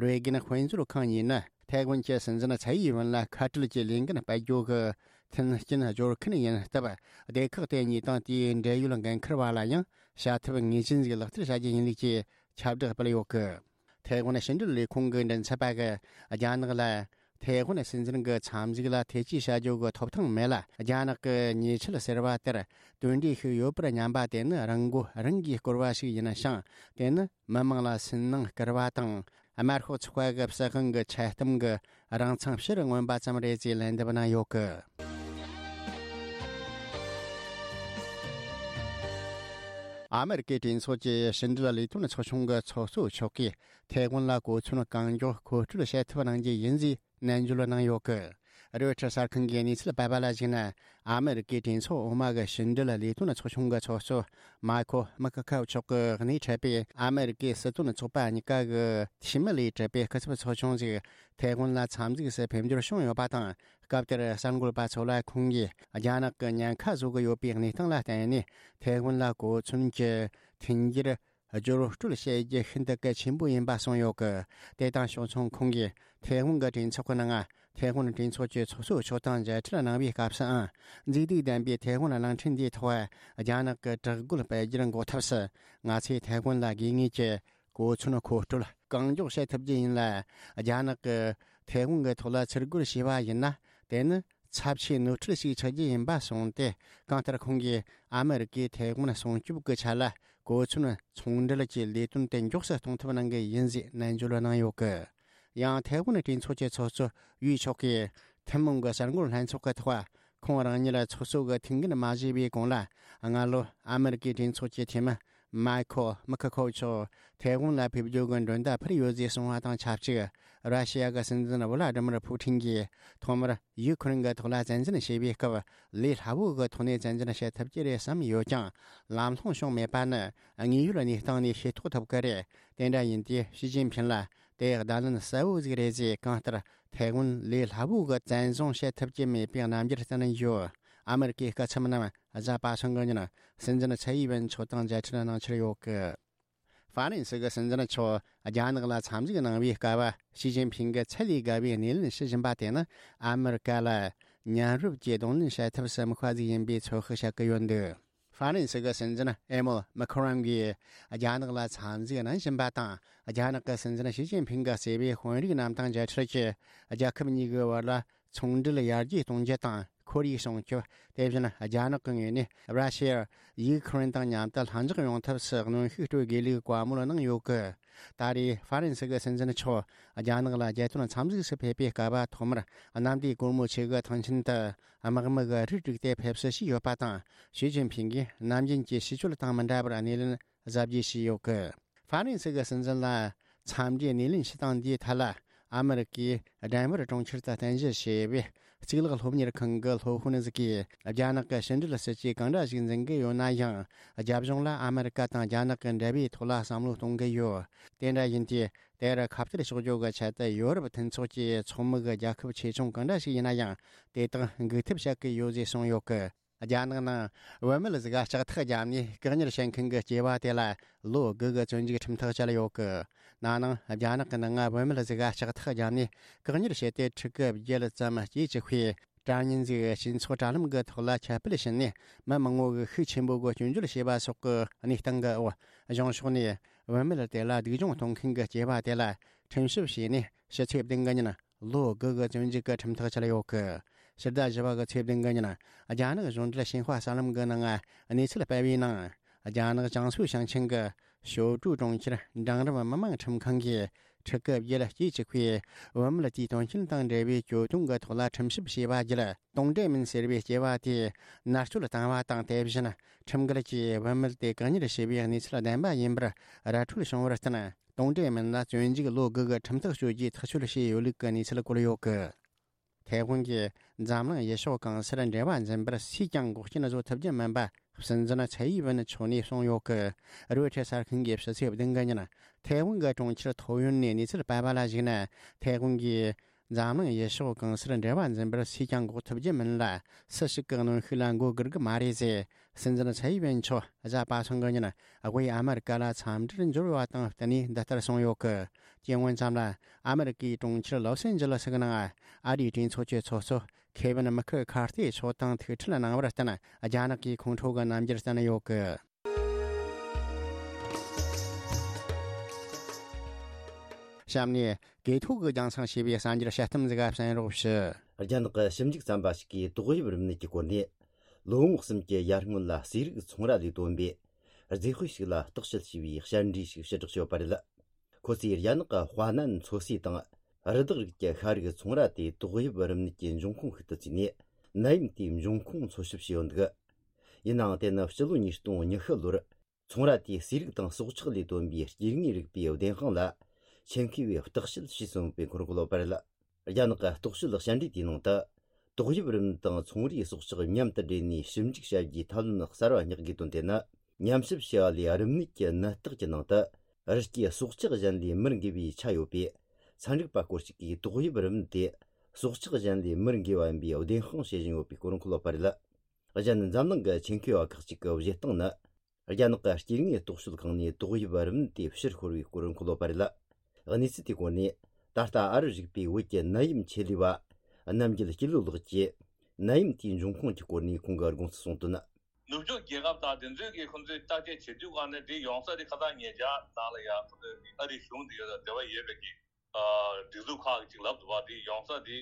རེ་གན་དཔལ་འབྱོར་ཁང་གཉིས་ནི་ཐའེ་ཝན་གྱི་སྲིད་འཛིན་ཚའེ་ཡིན་ཝུན་ལ་ཁ་བྲལ་གྱི་ལས་འགན་སྤེལ་རྒྱུ་གི་མཐུན་རྐྱེན་སྦྱོར་མཁན་ཡིན་སྟབས། སྡེ་ཁག་དེ་གཉིས་དང་དེའི་འབྲེལ་ཡོད་འགན་འཁུར་བ་ལ་ཡང་བྱ་ཐབས་ངེས་ཅན་ཞིག་ལག་བསྟར་བྱ་རྒྱུ་ཡིན་ལུགས་ཀྱི་ཁྱབ་བསྒྲགས་སྤེལ་ཡོད་སྐད། ཐའེ་ཝན་ཕྱི་འབྲེལ་ལས་ཁུངས་ཀྱི་མགྲིན་ཚབ་པ་གིས་རྒྱ་ནག་ལ། ཐའེ་ཝན་སྲིད་འཛིན་གྱི་འཚམས་གཟིགས་ལ་ཐེ་ཇུས་བྱ་རྒྱུ་གི་ཐོབ་ཐང་མེད་ལ། རྒྱ་ནག་གི་ཉེས་ཆད་ཟེར་བ་དེར་དོན་འབྲས་ཤིག་ཡོད་པར་སྙམ་པ་དེ་ནི་རང་མགོ་རང་གིས་བསྐོར་བ་ཞིག་ཡིན་ཞིང་། དེ་ནི་མི་དམངས་ལ་སུན་སྣང་སྐུལ་བ་དང་། དམར་ཤོག་ཚོགས་པ་གི་སྲིད་དབང་གི་ཆད་གཏམ་གྱི་རང་མཚང་ཕྱིར་མངོན་པ་ཙམ་རེད་ཅེས་ལན་འདེབས་གནང་ཡོད་སྐད། ཨ་མི་རི་ཀའི་གྲོས་ཚོགས་ཀྱི་ཕྱི་འབྲེལ་ལས་དོན་ཚོགས་ཆུང་གི་ཚོགས་གཙོ་མཆོག་གིས་ཐའེ་ཝན་ལ་གོ་མཚོན་གང་མགྱོགས་མཁོ་སྤྲོད་བྱེད་ཐབས་གནང་རྒྱུ་ཡིན་ཞེས་ནན་བརྗོད་གནང་ཡོད་སྐད། རོའི་ཊར་གསར་ཁང་གིས་གནས་ཚུལ་སྤེལ་བ་ལ་གཞིགས་ན། ཨ་མི་རི་ཀའི་གྲོས་ཚོགས་འོག་མ་གི་ཕྱི་འབྲེལ་ལས་དོན་ཚོགས་ཆུང་གི་ཚོགས་གཙོ་མཱ་ཁོ་མི་ཁ་ཁའོ་མཆོག་གིས་སྣེ་ཁྲིད་པའི་ཨ་མི་རི་ཀའི་སྲིད་དོན་ཚོགས་པ་གཉིས་ཀ་གི་འཐུས་མི་ལས་གྲུབ་པའི་སྐུ་ཚབ་ཚོགས་ཆུང་ཞིག་ཐའེ་ཝན་ལ་འཚམས་གཟིགས་སུ་ཕེབས་འབྱོར་བྱུང་ཡོད་པ་དང་། སྐབས་དེར་གསར་འགོད་པ་ཚོ་ལ་ཁོང་གིས་རྒྱ་ནག་གི་ཉེན་ཁ་བཟོ་གི་ཡོད་པའི་གནས་སྟངས་ལ་བརྟེན་ནས། ཐའེ་ཝན་ལ་གོ་མཚོན་གྱི་མཐུན་འགྱུར་སྦྱོར་སྤྲོད་བྱེད་རྒྱུ་ཤིན་ཏུ་གལ་ཆེན་པོ་ཡིན་པ་གསུངས་ཡོད་སྐད། དེ་དང་ཕྱོགས་མཚུངས། ཁོང་གིས་ཐའེ་ཝན་གྱི་གྲོས་ཚོགས་ཀྱི་ནང་། ཐའེ་ཝན་གྲོས་ཚོགས་ཀྱི་ཚོགས་གཙོ་མཆོག་དང་མཇལ་འཕྲད་གནང་བའི་སྐབས་སུའང་། མཛེས་སྡུག་ལྡན་པའི་ཐའེ་ཝན་གླིང་ཕྲན་འདིའི་ཐོག་རྒྱ་ནག་གི་དྲག་རྒོལ་སྤེལ་རྒྱུར་འགོག་ཐབས་སུ། ང་ཚོས་ཐའེ་ཝན་ལ་དགོས་ངེས་ཀྱི་གོ་མཚོན་མཁོ་སྤྲོད་གང་མགྱོགས་བྱེད་ཐུབ་རྒྱུ་ཡིན་ལ། རྒྱ་ནག་གིས་ཐའེ་ཝན་གྱི་ཐོག་ལ་ཚུར་རྒོལ་བྱས་པ་ཡིན་ན། དེ་ནི་ཚབས་ཆེའི་ནོར་འཁྲུལ་ཞིག་ཆགས་རྒྱུ་ཡིན་པ་གསུངས་ཏེ། གང་ལྟར་ཁོང་གིས་ཨ་མི་རི་ཀས་ཐའེ་ཝན་སྲུང་སྐྱོབ་ཀྱི་ཆེད་ལ་གོ་མཚོན་ཚོང་འབྲེལ་གྱི་ལས་དོན་དེ་མགྱོགས་སུ་གཏོང་ཐབས་གནང་གི་ཡིན་ཞེས་ནན་བརྗོད་གནང་ཡོད་སྐད། ཡང་ཐའེ་ཝན་གྲོས་ཚོགས་ཀྱི་ཚོགས་གཙོ་ཝུའུ་མཆོག་གིས་ཐུན་མོང་གི་གསར་འགོད་ལྷན་ཚོགས་ཀྱི་ཐོག་ཁོང་རང་ཉིད་ཚོགས་གཙོ་གི་ཐུགས་འགན་མ་བཞེས་པའི་གོང་ལ། སྔ་ལོ་ཨ་མི་རི་ཀའི་གྲོས་ཚོགས་ཀྱི་འཐུས་མི་མཱི་ཁོ་མི་ཁ་ཁོ་མཆོག་ཐའེ་ཝན་ལ་ཕེབས་རྒྱུ་གི་མགྲོན་བརྡ་ཕུལ་ཡོད་ཅེས་གསུངས་པ་དང་ཆབས་ཅིག་ར་ཤི་ཡ་གི་སྲིད་འཛིན་ཝི་ལ་ཏི་མིར་ཕུ་ཐིན་གྱིས་ཐོག་མར་ཡུ་ཁུ་རེན་གྱི་ཐོག་ལ་བཙན་འཛུལ་བྱས་པའི་སྐབས། ལས་སླ་བོ་གི་ཐོག་ནས་བཙན་འཛུལ་བྱེད་ཐུབ་ཀྱི་རེད་བསམ་ཡོད་ཀྱང་། ལམ་ལྷོང་བྱུང་མེད་པ་ནི་དངོས་ཡོད་གནས་སྟངས་ནས་ཤེས་རྟོགས་ཐུབ་ཀྱི་རེད། དེ་འདྲ་ཡིན་དུས་ཞི་ཅིན་ཕིན་ལ། དེ་བརྡ་ལན་གསལ་བོ་ཟིག་རེད་ཟེར། གང་ལྟར་ཐའེ་ཝན་ལས་སླ་བོ་གི་བཙན་བཟུང་བྱེད་ཐུབ་ཀྱི་མེད་པའི་རྣམ་འགྱུར་བསྟན་ཡོད། ཨ་མེ་རི་ཀའི་སྐུ་ཚབ་རྣམས་གཟའ་པ་སངས་གི་ཉིན་སྲིད་འཛིན་ཚའེ་ཝན་མཆོག་དང་མཇལ་འཕྲད་གནང་འཆར་ཡོད་གི། ཧྥ་རན་སི་གི་སྲིད་འཛིན་མཆོག་རྒྱ་ནག་ལ་འཚམས་གཟིགས་གནང་བའི་སྐབས། ཞི་ཅིན་ཕིང་གིས་ཚད་ལས་བརྒལ་བའི་སྣེ་ལེན་བྱེད་བཞིན་པ་དེ་ནི་ཨ་མེ་རི་ཀ་ལ་མཉམ་རུབ་ཀྱིས་གདོང་ལེན་བྱེད་ཐབས་སུ་དམིགས་པ་ཟིག་ཡིན་པའི་ཚོད་དཔག་བྱེད་ཀྱི་ཡོད་འདུག་ཧྥ་རན་སི་གི་སྲིད་འཛིན་ཨེ་མོལ་མེ་ཁོ་རོན་གྱིས་རྒྱ་ནག་ལ་འཚམས་གཟིགས་གནང་བཞིན་པ་དང་། རྒྱ་ནག་གི་སྲིད་འཛིན་ཞི་ཅིན་ཕིང་གིས་གཙོས་པའི་དཔོན་རིགས་རྣམས་དང་མཇལ་འཕྲད་ཀྱིས། རྒྱལ་ཁབ་གཉིས་ཀྱི་བར་ལ་ཚོང་འབྲེལ་ཡར་རྒྱས་གཏོང་རྒྱུ་དང་ཁོར་ཡུག་སྲུང་སྐྱོབ། དེ་བཞིན་རྒྱ་ནག་གི་ངོས་ནས་ར་ཤི་ཡ། ཡུ་ཁུ་རེན་དང་མཉམ་དུ་ལྷིང་འཇགས་ཡོང་ཐབས་སུ་གནོན་ཤུགས་སྤྲོད་དགོས་ལུགས་བཀའ་མོལ་གནང་ཡོད་གི། ད་རེས་ཧྥ་རན་སི་གི་སྲིད་འཛིན་མཆོག་རྒྱ་ནག་ལ་རྒྱལ་དོན་འཚམས་གཟིགས་སུ་ཕེབས་པའི་སྐབས། ཐོག་མར་གནམ་བདེ་སྒོ་མོ་ཆེ་གི་ཐང་ཆེན་དུ་དམག་མི་གི་རིགས་བསྒྲིགས་ཏེ་ཕེབས་བསུ་ཞུས་ཡོད་པ་དང་། ཞི་ཅིན་ཕིང་གིས་ནམ་རྒྱུན་གྱི་ཞི་གཅོད་དང་མི་འདྲ་བར་སྣེ་ལེན་གཟབ་རྒྱས་བྱས་ཡོད་གི། ཧྥ་རན་སི་གི་སྲིད་འཛིན་ལ་འཚམས་འདྲིའི་སྣེ་ལེན་བྱེད་སྟངས་འདིའི་ཐད་ལ། ཨ་མེ་རི་ཀའི་ཌེན་ཝར་གྲོང་ཁྱེར་དུ་རྟེན་གཞི་བྱས་པའི་གཙུག་ལག་སློབ་གཉེར་ཁང་གི་སློབ་དཔོན་ཟིག་གིས། རྒྱ་ནག་གི་ཕྱི་འབྲེལ་སྲིད་ཇུས་གང་འདྲ་ཞིག་འཛིན་གི་ཡོད་ན་ཡང་། རྒྱབ་ལྗོངས་ལ་ཨ་མེ་རི་ཀ་དང་རྒྱ་ནག་གི་འབྲེལ་བའི་ཐོག་ལ་བསམ་བློ་གཏོང་གི་ཡོད། དེ་འདྲ་ཡིན་དུས། དེར་ཁ་གཏད་གཅོག་རྒྱུ་གི་ཆེད་དུ་ཡོ་རོབ་མཐུན་ཚོགས་ཀྱི་ཚོགས་མི་གི་རྒྱལ་ཁབ་ཆེ་ཆུང་གང་འདྲ་ཞིག་ཡིན་ན་ཡང་། དེ་དག་འགུག་ཐབས་བྱེད་ཀྱི་ཡོད་ཅེས་གསུངས་ཡོད་གི། རྒྱ་ནག་ནང་བུད་མེད་ཟིག་ལྕགས་ཐག་བརྒྱབ་ནས་བཀག་ཉར་བྱེད་མཁན་གྱི་སྐྱེས་པ་དེ་ལ་ལོ་དགུ་གི་བཙོན་འཇུག་ཁྲིམས་ཐག་བཅད་ཡོད་གི། ན་ནིང་རྒྱ་ནག་གི་ནང་ང་བུད་མེད་ཟིག་ལྕགས་ཐག་བརྒྱབ་ནས་བཀག་ཉར་བྱས་ཏེ། ཕྲུ་གུ་བརྒྱད་ཙམ་སྐྱེས་བཅུག་པའི་དྲ་བརྙན་ཟིག་སྤྱི་ཚོགས་དྲ་ལམ་གྱི་ཐོག་ལ་ཁྱབ་སྤེལ་བྱས་ནས། མི་མང་བོ་གིས་ཤུགས་ཆེན་པོ་གིས་སྐྱོན་བརྗོད་བྱས་པ་སོགས་ཀྱི་གནས་སྟངས་ཀྱི་འོག་གཞུང་ཕྱོགས་ནས་བུད་མེད་དེ་ལ་སྡུག་སྦྱོང་གཏོང་མཁན་གྱི་སྐྱེས་པ་དེ་ལ་ཁྲིམས་ཞིབ་བྱས་ནས། ཕྱི་ཚེས་བདུན་གི་ཉིན་ལོ་དགུ་གི་བཙོན་འཇུག་གི་ཁྲིམས་ཐག་བཅད་ཡོད་གི། ཕྱི་ཟླ་བཞི་པ་གི་ཚེས་བདུན་གི་ཉིན། རྒྱ་ནག་གཞུང་འབྲེལ་ཞིན་ཧྭ་གསར་ལམ་གི་ནང་གནས་ཚུལ་སྤེལ་བའི་ནང་། རྒྱ་ནག་ཅང་སུའུ་ཞིང་ཆེན་གྱི་ཞོ་ཀྲུའུ་གྲོང་ཁྱེར་འབྲིང་རིམ་མི་དམངས་ཁྲིམས་ཁང་གིས། ཕྲུ་གུ་བརྒྱད་སྐྱེས་བཅུག་པའི་བུད་མེད་དེའི་དོན་རྐྱེན་དང་འབྲེལ་བའི་གྱོད་དོན་གྱི་ཐོག་ལ་ཁྲིམས་ཞིབ་བྱས་པ་བརྒྱུད། ཏུང་ཀྲེ་མིན་ཟེར་བའི་སྐྱེས་པ་དེ་མནར་གཅོད་བཏང་བ་དང་། དེ་བཞིན་ཁྲིམས་འགལ་གྱིས་བུད་མེད་དེ་བཀག་ཉར་བྱས་པའི་གནས་ཚུལ་བདེན་པ་ཡིན་པར་ར་འཕྲོད་བྱུང་བར་བརྟེན། ཏུང་ཀྲེ་མིན་ལ་བཙོན་འཇུག་ལོ་དགུ་གི་ཁྲིམས་ཐག་གཅོད་རྒྱུའི་ཐག་གཅོད་བྱས་ཡོད་ལུགས་ཀྱི་གནས་ཚུལ་བཀོད་ཡོད་གི། ཐའེ་ཝན་གྱི་འཛམ་གླིང་ཡུལ་ཕྱོགས་གང་སར་འབྲེལ་བ་འཛིན་པར་སུས་ཀྱང་འགོག་རྐྱེན་བཟོ་ཐུབ་ཀྱི་མིན་པ། སྲིད་འཛིན་ཚའེ་ཡི་ཝེན་མཆོག་ནས་གསུངས་ཡོད་གི། རོའི་ཊར་གསར་ཁང་གིས་ཕྱི་ཚེས་བདུན་གི་ཉིན་ཐའེ་ཝན་གྱི་གྲོང་ཁྱེར་ཐོ་ཡོན་ནས་གནས་ཚུལ་སྤེལ་བ་ལ་གཞིགས་ན། ཐའེ་ཝན་གྱིས་འཛམ་གླིང་ཡུལ་ཕྱོགས་གང་སར་འབྲེལ་བ་འཛིན་པར་སུས་ཀྱང་འགོག་ཐུབ་ཀྱི་མིན་ལ། སུ་ཞིག་གིས་གནོན་ཤུགས་ལ་མགོ་སྒུར་གི་མ་རེད་ཟེར། སྲིད་འཛིན་ཚའེ་ཡི་ཝེན་མཆོག་གཟའ་པ་སངས་གི་ཉིན་དབུས་ཨ་མེ་རི་ཀ་ལ་འཚམས་འདྲིར་འབྱོར་བ་དང་བསྟུན་ནས་འདི་ལྟར་གསུངས་ཡོད་གི། སྐྱེ་དངོས་ཙམ་ལ། ཨ་མེ་རི་ཀའི་གྲོང་ཁྱེར་ལོ་སན་ཇི་ལི་སི་གི་ནང་ཨ་རིའི་གྲོས་ཚོགས་ཀྱི་ཚོགས་གཙོ་ཁེ་ཝིན་མི་ཁི་ཁར་ཏི་མཆོག་དང་ཐུག་འཕྲད་གནང་བར་བརྟེན། རྒྱ་ནག་གིས་ཁོང་ཁྲོ་གི་རྣམ་འགྱུར་བསྟན་ཡོད་གི། གཤམ་ནས་གོ་ཐོས་ཀྱིས་རྒྱང་སྲིང་བྱས་པའི་གསར་འགྱུར་དཔྱད་རྟགས་ཟིག་ག་གསན་རོགས་ཞུ། རྒྱ་ནག་གི་ཞིབ་འཇུག་ཚན་པ་ཞིག་གིས་ཏོག་དབྱིབས་རིམས་ནད་ཀྱི་སྐོར་ནས། ལོ་ངོ་གསུམ་གྱི་ཡར་སྔོན་ལ་ཟས་རིགས་ཚོང་ར་ལས་བཏོན་པའི་རྫས་དཔེ་ཞིག་ལ་བརྟག་དཔྱད་བྱས་པའི་བཤད་འཕྲིན་ཞིག་ཕྱིར་བསྒྲགས་བྱས་ཡོད་པ་རེད། ཁོ་ཚོས་རྒྱ་ནག་གི་ཧྭ་ནན་མཚོ་ཟས་དང་རི་དྭགས་རིགས་ཀྱི་ཤ་རིགས་ཚོང་ར་དེ་ཏོག་དབྱིབས་རིམས་ནད་ཀྱི་འབྱུང་ཁུངས་ཤིག་ཏུ་བརྩིས་ནས། ནད་ཡམས་དེའི་འབྱུང་ཁུངས་འཚོལ་ཞིབ་བྱས་ཡོད་འདུག་ཡིན་ནའང་། དེ་ནི་ཕྱི་ལོ་ཉིས་སྟོང་ཉི་ཤུ་ལོར་ཚོང་ར་དེའི་ཟས་རིགས་དང་སྲོག་ཆགས་ལས་བཏོན་པའི་སྐྱེ་དངོས་རིག་པའི་བདེན་དཔང་ལ་ཆེད་མཁས་པས་བརྟག་དཔྱད་བྱས་ཟིན་པའི་ཁོར་ཡུག་ལོ་པར་ལ། རྒྱ་ནག་གི་རྟོག་དཔྱོད་ཞལ་འདྲིས་དེའི་ནང་དུ། ཏོག་དབྱིབས་རིམས་དང་ཚོང་རའི་སྲོག་ཆགས་མཉམ་དུ་སྦྲེལ་ནས་ཞིབ་འཇུག་བྱ་རྒྱུའི་ཐབས་ལམ་གསར་བ་བསྙེག་དགོས་དོན་དེ་ནི། ཉམས་ཞིབ་བྱས་པ་ལས་རིམས་ནད་ཀྱི་ནད་རྟགས་ཀྱི་ནང་དུ། རི་སྐྱེས་སྲོག་ཆགས་གཞན་ལས་མི་འགོས་པའི་ཆ་ཡོད་པས། ཚན་རིག་པ་སྐོར་ཞིག་གིས་ཏོག་དབྱིབས་རིམས་དེ་སྲོག་ཆགས་གཞན་ལས་མི་འགོས་པ་ཡིན་པའི་བདེན་དཔང་བྱེད་བཞིན་ཡོད་པའི་སྐོར་འཁོད་ཡོད་པ་རེད། གཞན། འཛམ་གླིང་གི་ཆེད་མཁས་པ་ཁག་ཅིག་གི་བཞེད་སྟངས་ནི། རྒྱ་ནག་གི་སྐྱེ་དངོས་རྟོག་དཔྱོད་ཁང་ནས་ཏོག་དབྱིབས་རིམས་དེ་ཕྱིར་ཤོར་བའི་སྐོར་འཁོད་ཡོད་པ་རེད། གནས་ཚུལ་དེའི་སྐོར་ནས། ད་ལྟ་ཨ་རི་རིག་པའི་བོད་ཀྱི་ནད་ཡམས་ཆེད་ལས་པ་རྣམ་རྒྱལ་སྐྱིད་ལོ་ལགས་ཀྱིས། ནད་ཡམས་དེའི་འབྱུང་ཁུངས་ཀྱི་སྐོར་ནས་ཁོང་གི་དགོངས་ཚུལ་གསུངས་དོན། ནུབ་ཕྱོགས་རྒྱལ་ཁབ་དང་དེ་ཚོས་ཀྱིས་ཁོང་ཚོས་བརྟག་དཔྱད་བྱེད་དུས་ག་ནས་དེ་ཡོང་ས་དེ་ཁ་སང་ཉེ་ཆར་ནང་ལ་ཡང་ཁོང་ཚོས་ཨ་རིའི་གཞུང་དེ་ཡོད་ལ་འབྲེལ་བ་ཡོད་པའི་གི་སྒྲིག་འཛུགས་ཁག་ཅིག་ལབ་འདུག་བ། དེ་ཡོང་ས་དེ་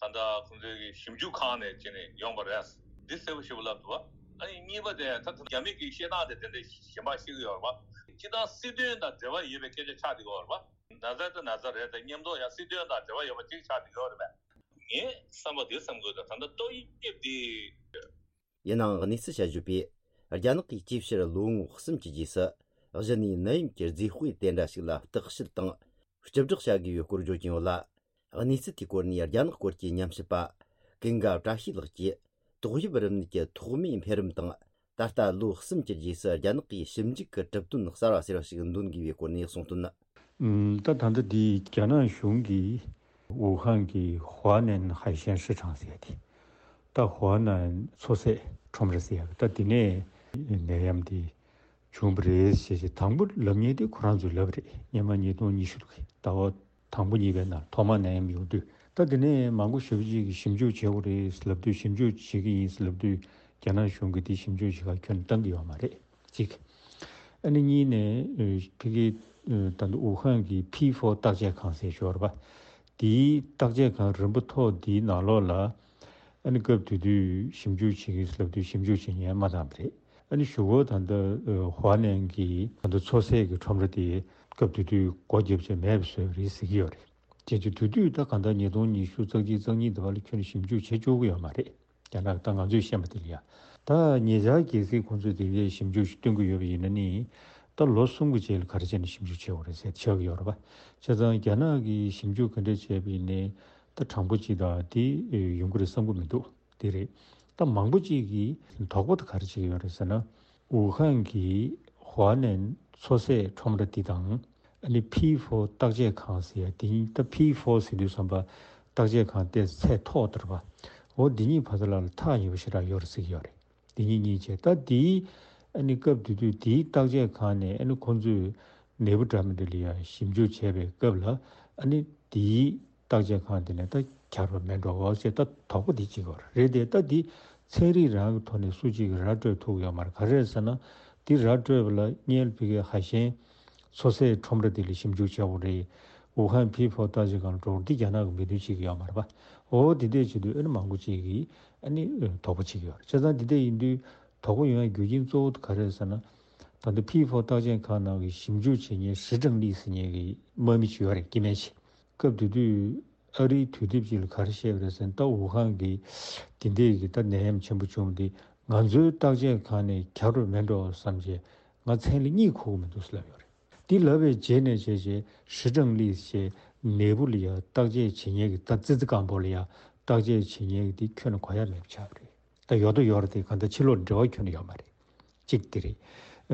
ད་ལྟ་ཁོང་ཚོའི་གི་ཞིབ་འཇུག་ཁང་ནས་བྱས་ནས་ཡོང་པ་རེད། འདི་གསལ་པོ་ཞེ་པོ་ལབ་འདུག་བ། ཨ་ནི་གཉིས་པ་དེ་ད་རྒྱ་མི་གི་བཤད་སྟངས་དེ་དེ་འདྲ་གཞན་པ་ཤེས་ཀྱི་ཡོད་རེད་བ། སྤྱིར་བཏང་སྲིད་དོན་དང་འབྲེལ་བ་ཡོད་པའི་སྐད་ཆ་ཆགས་བསྡད་ཀྱི་ཡོད་རེད་བ། ན་ཚ་དང་ན་ཚ་རེད་དེ། མཉམ་དུ་ཡང་སྲིད་དོན་དང་འབྲེལ་བ་ཡོད་པ་ཅིག་ཆགས་བསྡད་ཀྱི་ཡོད་རེད་བས། ངས་བསམ་པ་དེ་བསམ་དགོས། ད་ད་ལྟ་ཏོག་དབྱིབས་དེ། ཡིན་ནའང་། གནས་ཚུལ་དཔྱད་བརྗོད་པས། རྒྱ་ནག་གིས་ཅིའི་ཕྱིར་ལོ་ངོ་གསུམ་གྱི་རྗེས་སུ་གཞི་ནས་ནད་ཡམས་ཀྱི་རྫས་དཔེ་དེ་འདྲ་ཞིག་ལ་བརྟག་དཔྱད་དང་། སྤྱི་བསྒྲགས་བྱ་དགོས་པའི་སྐོར་བརྗོད་ཀྱིན་ཡོད་ལ། གནས་ཚུལ་དེའི་སྐོར་ནས་རྒྱ་ནག་སྐོར་གྱི་ཉམས་ཞིབ་པ་ཀུན་དགའ་བཀྲ་ཤིས་ལགས་ཀྱིས། ཏོག་དབྱིབས་རིམས་ནད་ཀྱི་ཐོག་མའི་འཕེལ་རིམ་དང་། ད་ལྟ་ལོ་གསུམ་གྱི་རྗེས་སུ་རྒྱ་ནག་གིས་ཞིབ་འཇུག་གི་གྲུབ་དོན་གསར་བ་ཟེར་བ་ཞིག་འདོན་དགོས་པའི་སྐོར་ནས་གསུངས་དོན། ཨུམ། ད་ད་ལྟ་འདི་རྒྱ་ནག་གཞུང་གིས་ཝུ་ཧན་གྱི་ཧྭ་ནན་ཧའེ་ཤན་市场ཟེར་ཡ་དེ། ད་ཧྭ་ནན་མཚོ་ཟས་ཁྲོམ་ར་ཟེར་ཡ་ད་འདི་ནས་ནད་ཡམས་དེ་བྱུང་བ་རེད་ཟེར་ཞེས་དང་པོ་ལབ་མཁན་དེ་ཁོ་རང་ཚོས་ལབ་རེད། སྔོན་མ་ཉིས་སྟོང་ཉི་ཤུ་ཟླ་བ་དང་པོ་གཉིས་པའི་ནང་ཐོག་མ་ནད་ཡམས་ཡོང་དུས། ད་དེ་ནས་མང་པོ་ཞེ་པོ་ཅིག་གིས་ཞིབ་འཇུག་བྱེད་དགོས་རེད་ལབ་དུས། ཞིབ་འཇུག་བྱེད་ཀྱི་ཡིན་ལབ་དུས་རྒྱ་ནག་གཞུང་གིས་དེ་ཞིབ་འཇུག་བྱེད་གར་ཁྱོན་ནས་བཏང་གི་ཡོད་མ་རེད། གཅིག་ཨ་ནི་གཉིས་ནས་ཕ་གི་ད་ལྟ་ཝུ་ཧན་གྱི་ཕི་ཧྥོ་བརྟག་དཔྱད་ཁང་ཟེར་ཞོར་བ་དེའི་བརྟག་དཔྱད་ཁང་རིམ་པ་མཐོ་འདིའི་ནང་ལོགས་ལ། ཨ་ནི་སྐབས་དེ་དུས་ཞིབ་འཇུག་བྱེད་ཀྱི་ལབ་དུས་ཞིབ་འཇུག་བྱེད་མཁན་མ་བཏང་བ་རེད། ཨ་ནི་གཞུག་གུ་ད་ལྟ་ཧྭ་ནན་གྱི་ད་ལྟ་མཚོ་ཟས་ཀྱི་ཁྲོམ་ར་དེ་སྐབས་དེ་དུས་སྒོ་བརྒྱབ་བྱས་མེད་པ་བཟོས་པ་རེད་ཟེར་གྱི་ཡོད་རེད། བྱས་ཙང་དེ་དུས་ད་གང་ལྟར་ཉིས་སྟོང་ཉི་ཤུ་རྩ་གཅིག་རྩ་གཉིས་དེ་བར་ལ་ཁྱོན་ནས་ཞིབ་འཇུག་བྱེད་ཆོག་གི་ཡོད་མ་རེད། རྒྱ་ནག་ད་ང་ཚོས་ཤེས་པ་དེ་ལ་ཡ། ད་ཉེ་ཆར་གལ་སྲིད་ཁོང་ཚོས་དེ་འདྲའི་ཞིབ་འཇུག་ཞིག་སྟོན་གྱི་ཡོད་པ་ཡིན་ན་ནི། ད་ལོ་གསུམ་གྱི་རྗེས་ལ་ག་རེ་བྱས་ནས་ཞིབ་འཇུག་བྱེད་དགོས་རེད་ཟེར་ཆགས་ཀྱི་ཡོད་རེད་པ། བྱས་ཙང་རྒྱ་ནག་གིས་ཞིབ་འཇུག་ག་འདྲ་བྱས་པ་ཡིན་ནའི་ད་གྲངས་འབོར་ཅིག་དང་དེ་ཡོང་གི་རེད་བསམ་གྱི་མི་འདུག་དེ་རེད། ད་མང་པོ་ཅིག་གིས་དོགས་པ་དེ་ག་རེ་བྱེད་ཀྱི་ཡོད་རེད་ཟེར་ན། ཝུ་ཧན་གྱི་ཧྭ་ནན་མཚོ་ཟས་ཁྲོམ་ར་འདི་དང་། ཨ་ནི་ཕི་ཧྥོ་བརྟག་དཔྱད་ཁང་ཟེར་ཡ་དེ་ཡིན། ད་ཕི་ཧྥོ་ཟེར་དུས་ཙམ་པ་བརྟག་དཔྱད་ཁང་དེ་ཚད་མཐོ་དྲགས་པ། འོ་འདི་གཉིས་བར་དུ་ལ་ལ་ཐག་ཉེ་པོ་ཞེ་དྲག་ཡོད་རེད་ཟེར་གྱི་ཡོད་རེད། འདི་གཉིས་གཉིས་བྱས། ད་དེའི་ཨ་ནི་སྐབས་དེ་དུས་དེའི་བརྟག་དཔྱད་ཁང་ནས་ཨ་ནི་ཁོང་ཚོས་ནད་འབུ་འདྲ་མི་འདྲ་ལ་ཡ་ཞིབ་འཇུག་བྱས་པའི་སྐབས་ལ། ཨ་ནི་དེའི་བརྟག་དཔྱད་ཁང་དེ་ནས་ད་ཁྱབ་པ་མེད་འགྲོ་བ་ཞེས་ད་དོགས་པ་དེ་གཅིག་ཡོད་རེད་དེ། ད་འདི་ཚན་རིག་རང་གི་ཐོག་ནས་སུ་གཅིག་གིས་ར་སྤྲོད་ཐུབ་ཡོད་མ་རེད། ག་རེ་རེད་ཟེར་ན། འདི་ར་སྤྲོད་པ་ལ་སྔོན་ལ་ཕ་གིའི་ཧྭ་ཤན་མཚོ་ཟས་ཁྲོམ་ར་དེ་ལ་ཞིབ་འཇུག་བྱས་པ་རེད། ཝུ་ཧན་ཕི་ཧྥོ་བརྟག་དཔྱད་ཁང་ལ་འགྲོ་བ་འདི་རྒྱ་ནག་གི་མི་དོན་བྱེད་ཀྱི་ཡོད་མ་རེད་པ། འོ་དེ་འདྲས་བྱེད་དུས་ཨ་ནི་མང་པོ་ཅིག་གིས་ཨ་ནི་དོགས་པ་བྱེད་ཀྱི་ཡོད་རེད། བྱས་ཙང་འདི་འདྲས་ཡིན་དུས་དོགས་པ་ཡོང་ཡ་རྒྱུ་རྐྱེན་གཙོ་བོ་དེ་ག་རེ་རེད་ཟེར་ན། ད་ལྟ་ཕི་ཧྥོ་བརྟག་དཔྱད་ཁང་ནང་གི་ཞིབ་འཇུག་བྱེད་མཁན་ཧྲི་ཀྲང་ལི་ཟེར་མཁན་གྱི་དམག་མི་ཅིག་ཡོད་རེད། སྐྱེ་དམན་ཅིག་སྐབས་དེ་དུས་ཨ་རིའི་དུས་དེབ་ཅིག་ལ་ག་རེ་བཤད་པ་རེད་ཟེར་ན། ད་ཝུ་ཧན་གྱི་དེ་འདྲས་ཀྱི་ད་ནད་ཡམས་ཆེན་པོ་བྱུང་སྟེ་ང་ཚོའི་བརྟག་དཔྱད་ཁང་ནས་ཁྱབ་རོགས་མེད་འགྲོ་བསམ་བྱས་ང་མཚན་ལ་གཉིད་ཁུག་གི་མི་འདུག་ཟེར་ལབ་ཡོད་རེད། འདི་ལབ་པའི་རྗེས་ནས་བྱས་བྱས་ཧྲི་ཀྲང་ལི་ཞེས་ནད་འབུ་ལ་ཡ་བརྟག་དཔྱད་བྱེད་མཁན་གྱི་ད་ཙི་ཙི་སྐམ་པོ་ལ་ཡ་བརྟག་དཔྱད་བྱེད་མཁན་གྱི་དེ་ཁྱོན་ནས་གོ་ཡ་མེད་པ་ཆགས་པ་རེད། ད་ཡོད་དོ་ཡོད་རེད་དེ། གང་ལྟར་ཕྱི་ལོགས་འབྲེལ་བ་ཁྱོན་ནས་ཡོད་མ་རེད། གཅིག་དེ་རེད།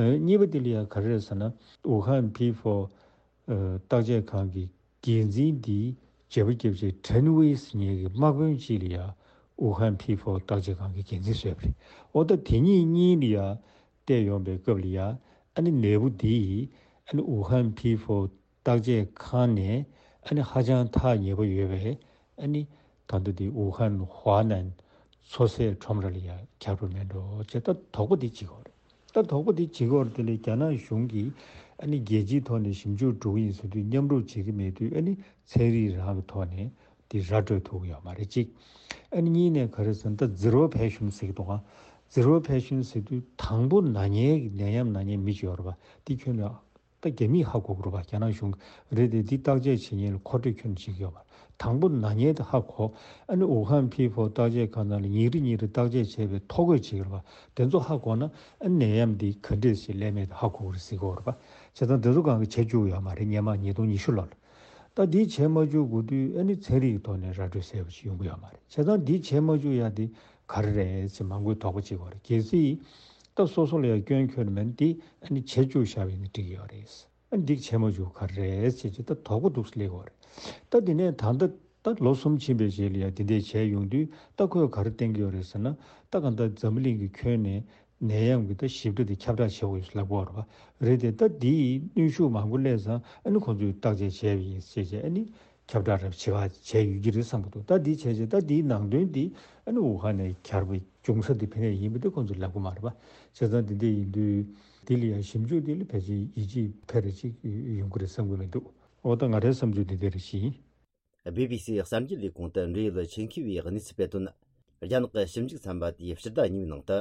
ཨ། གཉིས་པ་དེ་ལ་ཡ་ག་རེ་རེད་ཟེར་ན། ཝུ་ཧན་ཕི་ཧྥོ་ཨ་བརྟག་དཔྱད་ཁང་གི་འགན་འཛིན་འདིའི་བརྗེ་པོ་བརྒྱབ་བྱས་ཁྲེན་ཝེ་ཟེར་མཁན་གྱི་དམག་དཔོན་ཅིག་ལ་ཡ་ཝུ་ཧན་ཕི་ཧྥོ་བརྟག་དཔྱད་ཁང་གི་འགན་འཛིན་བཟོས་པ་རེད། འོ་ད་དེ་གཉིས་གཉིས་ལ་ཡ་བལྟས་ཡོང་པའི་སྐབས་ལ་ཡ། ཨ་ནི་ནད་འབུ་འདི་ཡིས་ཨ་ནི་ཝུ་ཧན་ཕི་ཧྥོ་བརྟག་དཔྱད་ཁང་ནས་ཨ་ནི་ཧ་ཅང་ཐག་ཉེ་པོ་ཡོད་པའི། ཨ་ནི་ད་ལྟ་འདི་ཝུ་ཧན་ཧྭ་ནན་མཚོ་ཟས་ཁྲོམ་ར་ལ་ཡ་ཁྱབ་རོགས་མེད་འགྲོ་ཅེས་ད་དོགས་པ་འདི་བྱེད་ཀྱི་ཡོད་རེད། ད་དོགས་པ་འདི་བྱེད་ཀྱི་ཡོད་རེད། དེ་ལས་རྒྱ་ནག་གཞུང་གིས་ཨ་ནི་རྒྱལ་སྤྱིའི་ཐོག་ནས་ཞིབ་འཇུག་འགྲོ་གི་ཡིན་ཟེར་དུས་མཉམ་རུབ་བྱེད་ཀྱི་མེད་དུས། ཨ་ནི་ཚན་རིག་རང་གི་ཐོག་ནས་འདི་ར་སྤྲོད་ཐུབ་ཀྱི་ཡོད་མ་རེད། གཅིག་ཨ་ནི་གཉིས་ནས་ག་རེ་ཟེར་ན། ད་ཛི་རོ་པེ་ཤན་ཟེར་གྱི་འདུག་ག་ཛི་རོ་པེ་ཤན་ཟེར་དུས་དང་པོ་ན་མཁན་གྱི་ནད་ཡམས་ན་མཁན་མི་ཅིག་ཡོད་རེད་པ། འདི་ཁྱོན་ནས་ད་རྒྱ་མིས་ཧ་གོ་གི་རེད་པ། རྒྱ་ནག་གཞུང་རེད་དེ། འདི་བརྟག་དཔྱད་བྱེད་མཁན་ལ་མཁོ་སྤྲོད་ཁྱོན་ནས་བྱེད་ཀྱི་ཡོད་མ་རེད། དང་པོ་ན་མཁན་དེ་ཧ་གོ། ཨ་ནི་ཝུ་ཧན་ཕི་ཧྥོ་བརྟག་དཔྱད་ཁང་ནང་ལ་ཉིན་རེ་ཉིན་རེ་བརྟག་དཔྱད་བྱས་པའི་ཐོ་འགོད་བྱེད་ཀྱི་རེད་པ། དེ་ཚོ་ཧ་གོ་ན་ཨ་ནད་ཡམས་འདི་ག་འདྲས་ཞིག་སླེབས་མེད་དེ་ཧ་གོ་གི་རེད་ཟེར་གྱི་ཡོད་རེད་པ། བྱས་ཙང་དེ་ཚོ་གང་ག་བྱེད་བཅུག་ཡོད་མ་རེད། སྔོན་མ་ཉིས་སྟོང་ཉི་ཤུ་ལོ་ལ། ད་འདི་བྱས་མ་བཅུག་དགོས་དུས་ཨ་ནི་ཚན་རིག་གི་ཐོག་ནས་ར་སྤྲོད་གསལ་པོ་ཞིག་ཡོང་གི་ཡོད་མ་རེད། བྱས་ཙང་འདི་བྱས་མ་བཅུག་ཡ་དེ་ག་རེ་རེད་ཟེར་མང་པོས་དོགས་པ་བྱེད་ཀྱི་ཡོད་རེད། གལ་སྲིད་ད་སོ་སོ་ལ་ཡ་སྐྱོན་ཁྱོན་མེད་ན་དེ་ཨ་ནི་བྱས་བཅུག་བཞག་པ་ཡིན་ན་འགྲིག་གི་ཡོད་རེད། ཨ་ནི་འདི་བྱས་མ་བཅུག་ག་རེ་རེད་ཟེར་བྱས་ད་དོགས་པ་འདུག་སེ་སླེབས་ཀྱི་ཡོད་རེད། ད་དེ་ནས་ད་ལྟ་ད་ལོ་གསུམ་ཕྱིན་པའི་རྗེས་ལ་ཡ་དེ་འདྲས་བྱས་ཡོང་དུས། ད་ཁོས་ག་རེ་བསྟན་གྱི་ཡོད་རེད་ཟེར་ན། ད་གང་ལྟར་འཛམ་བུ་གླིང་གི་ཁྱོན་ནས་ནད་ཡམས་ཀྱི་ད་ཞིབ་ཕྲ་དེ་ཁྱབ་བསྒྲགས་བྱེད་དགོས་ཡོད་ལབ་ཀྱི་ཡོད་རེད་པ། རེད་དེ། ད་འདིའི་གནོན་ཤུགས་མང་པོ་སླེབས་ཙང་ཨ་ནི་ཁོང་ཚོས་བརྟག་དཔྱད་བྱས་པ་ཡིན་ཟེར་བྱས་ཨ་ནི་ཁྱབ་བསྒྲགས་རབ་བྱེད་པ་བྱས་ཡོད་ཀྱི་རེད་བསམ་གྱི་འདུག་ད་འདི་བྱས་རྗེས་ད་འདིའི་ནང་དོན་འདི་ཨ་ནི་ཝུ་ཧན་ནས་གྱར་བའི་འབྱུང་ས་འདི་ཕ་གིར་ཡིན་པ་འདི་ཁོང་ཚོས་ལབ་ཀྱི་མ་རེད་པ། བྱས་ཙང་འདི་འདྲ་ཡིན་དུས་འདི་ལ་ཡང་ཞིབ་འཇུག་འདི་ལ་ཕལ་ཆེར་ཡིད་ཆེས་ཕལ་རེ་ཅིག་ཡོང་གི་རེད་བསམ་གྱི་མི་འདུག་འོ་ད་ང་རའི་བསམ་ཚུལ་འདི་འདྲ་རེ་ཞིག་ཡིན། བྷི་བྷི་སི་གསར་འགྱུར་ལས་ཁུངས་དུ་འབྲེལ་ཡོད་ཆེད་མཁས་པས་གནས་ཚུལ་སྤེལ་དོན། རྒྱ་ནག་གི་ཞིབ་འཇུག་ཚན་པ་དེས་ཕྱི་ཟླ་གཉིས་པའི་ནང་དུ་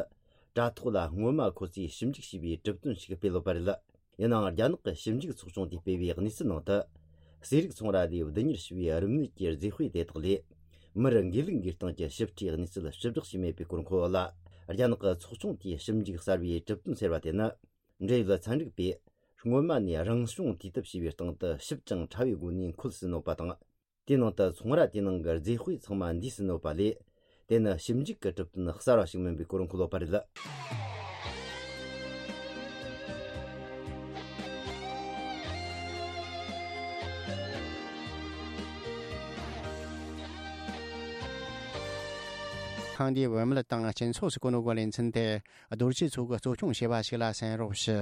དྲ་ཐོག་ལ་སྔོན་མ་ཁོ་ཚོས་ཞིབ་འཇུག་བྱས་པའི་གྲུབ་དོན་ཞིག་སྤེལ་ཡོད་པ་རེད། ཡིན་ནའང་རྒྱ་ནག་གི་ཞིབ་འཇུག་ཚོགས་ཆུང་དེས་སྤེལ་བའི་གནས་ཚུལ་ནང་དུ། ཟས་རིགས་ཚོང་ར་ལས་བསྡུ་གཉེར་བྱས་པའི་རིམས་ནད་ཀྱི་རྫས་དཔེ་དེ་དག་ལས། མིར་འགོས་ལུག་འགོས་སྟངས་ཀྱི་ཞིབ་ཕྲའི་གནས་ཚུལ་ཞིབ་བསྒྲགས་བྱས་མེད་པའི་སྐོར་འཁོད་ཡོད་ལ། རྒྱ་ནག་གི་ཚོགས་ཆུང་དེས་ཞིབ་འཇུག་གསར་བའི་གྲུབ་དོན་ཟེར་བ་དེ་ནི། འབྲེལ་ཡོད་ཚན་རིག་པས་སྔོན་མ་ནས་རང་བྱུང་དུས་དེབ་ཞེས་པའི་སྟེང་དུ་ཞིབ་ཅིང་ཕྲ་བའི་སྒོ་ནས་འཁོད་ཟིན་ཡོད་པ་དང་། དེའི་ནང་དུ་ཚོང་ར་དེའི་ནང་གི་རྫས་དཔེ་ཚང་མ་འདུས་ཟིན་ཡོད་པ་ལས། དེ་ནི་ཞིབ་འཇུག་གི་གྲུབ་དོན་གསར་བ་ཞིག་མིན་པའི་སྐོར་འཁོད་ཡོད་པ་རེད། ཐེངས་འདིའི་བུད་མེད་དང་སྤྱི་ཚོགས་སུ་གོ་ནོ་གི་ལེ་ཚན་དེ་རྡོ་རྗེ་མཚོ་གིས་གཙོ་སྐྱོང་བྱས་པ་ཞིག་ལ་གསན་རོགས་ཞུ།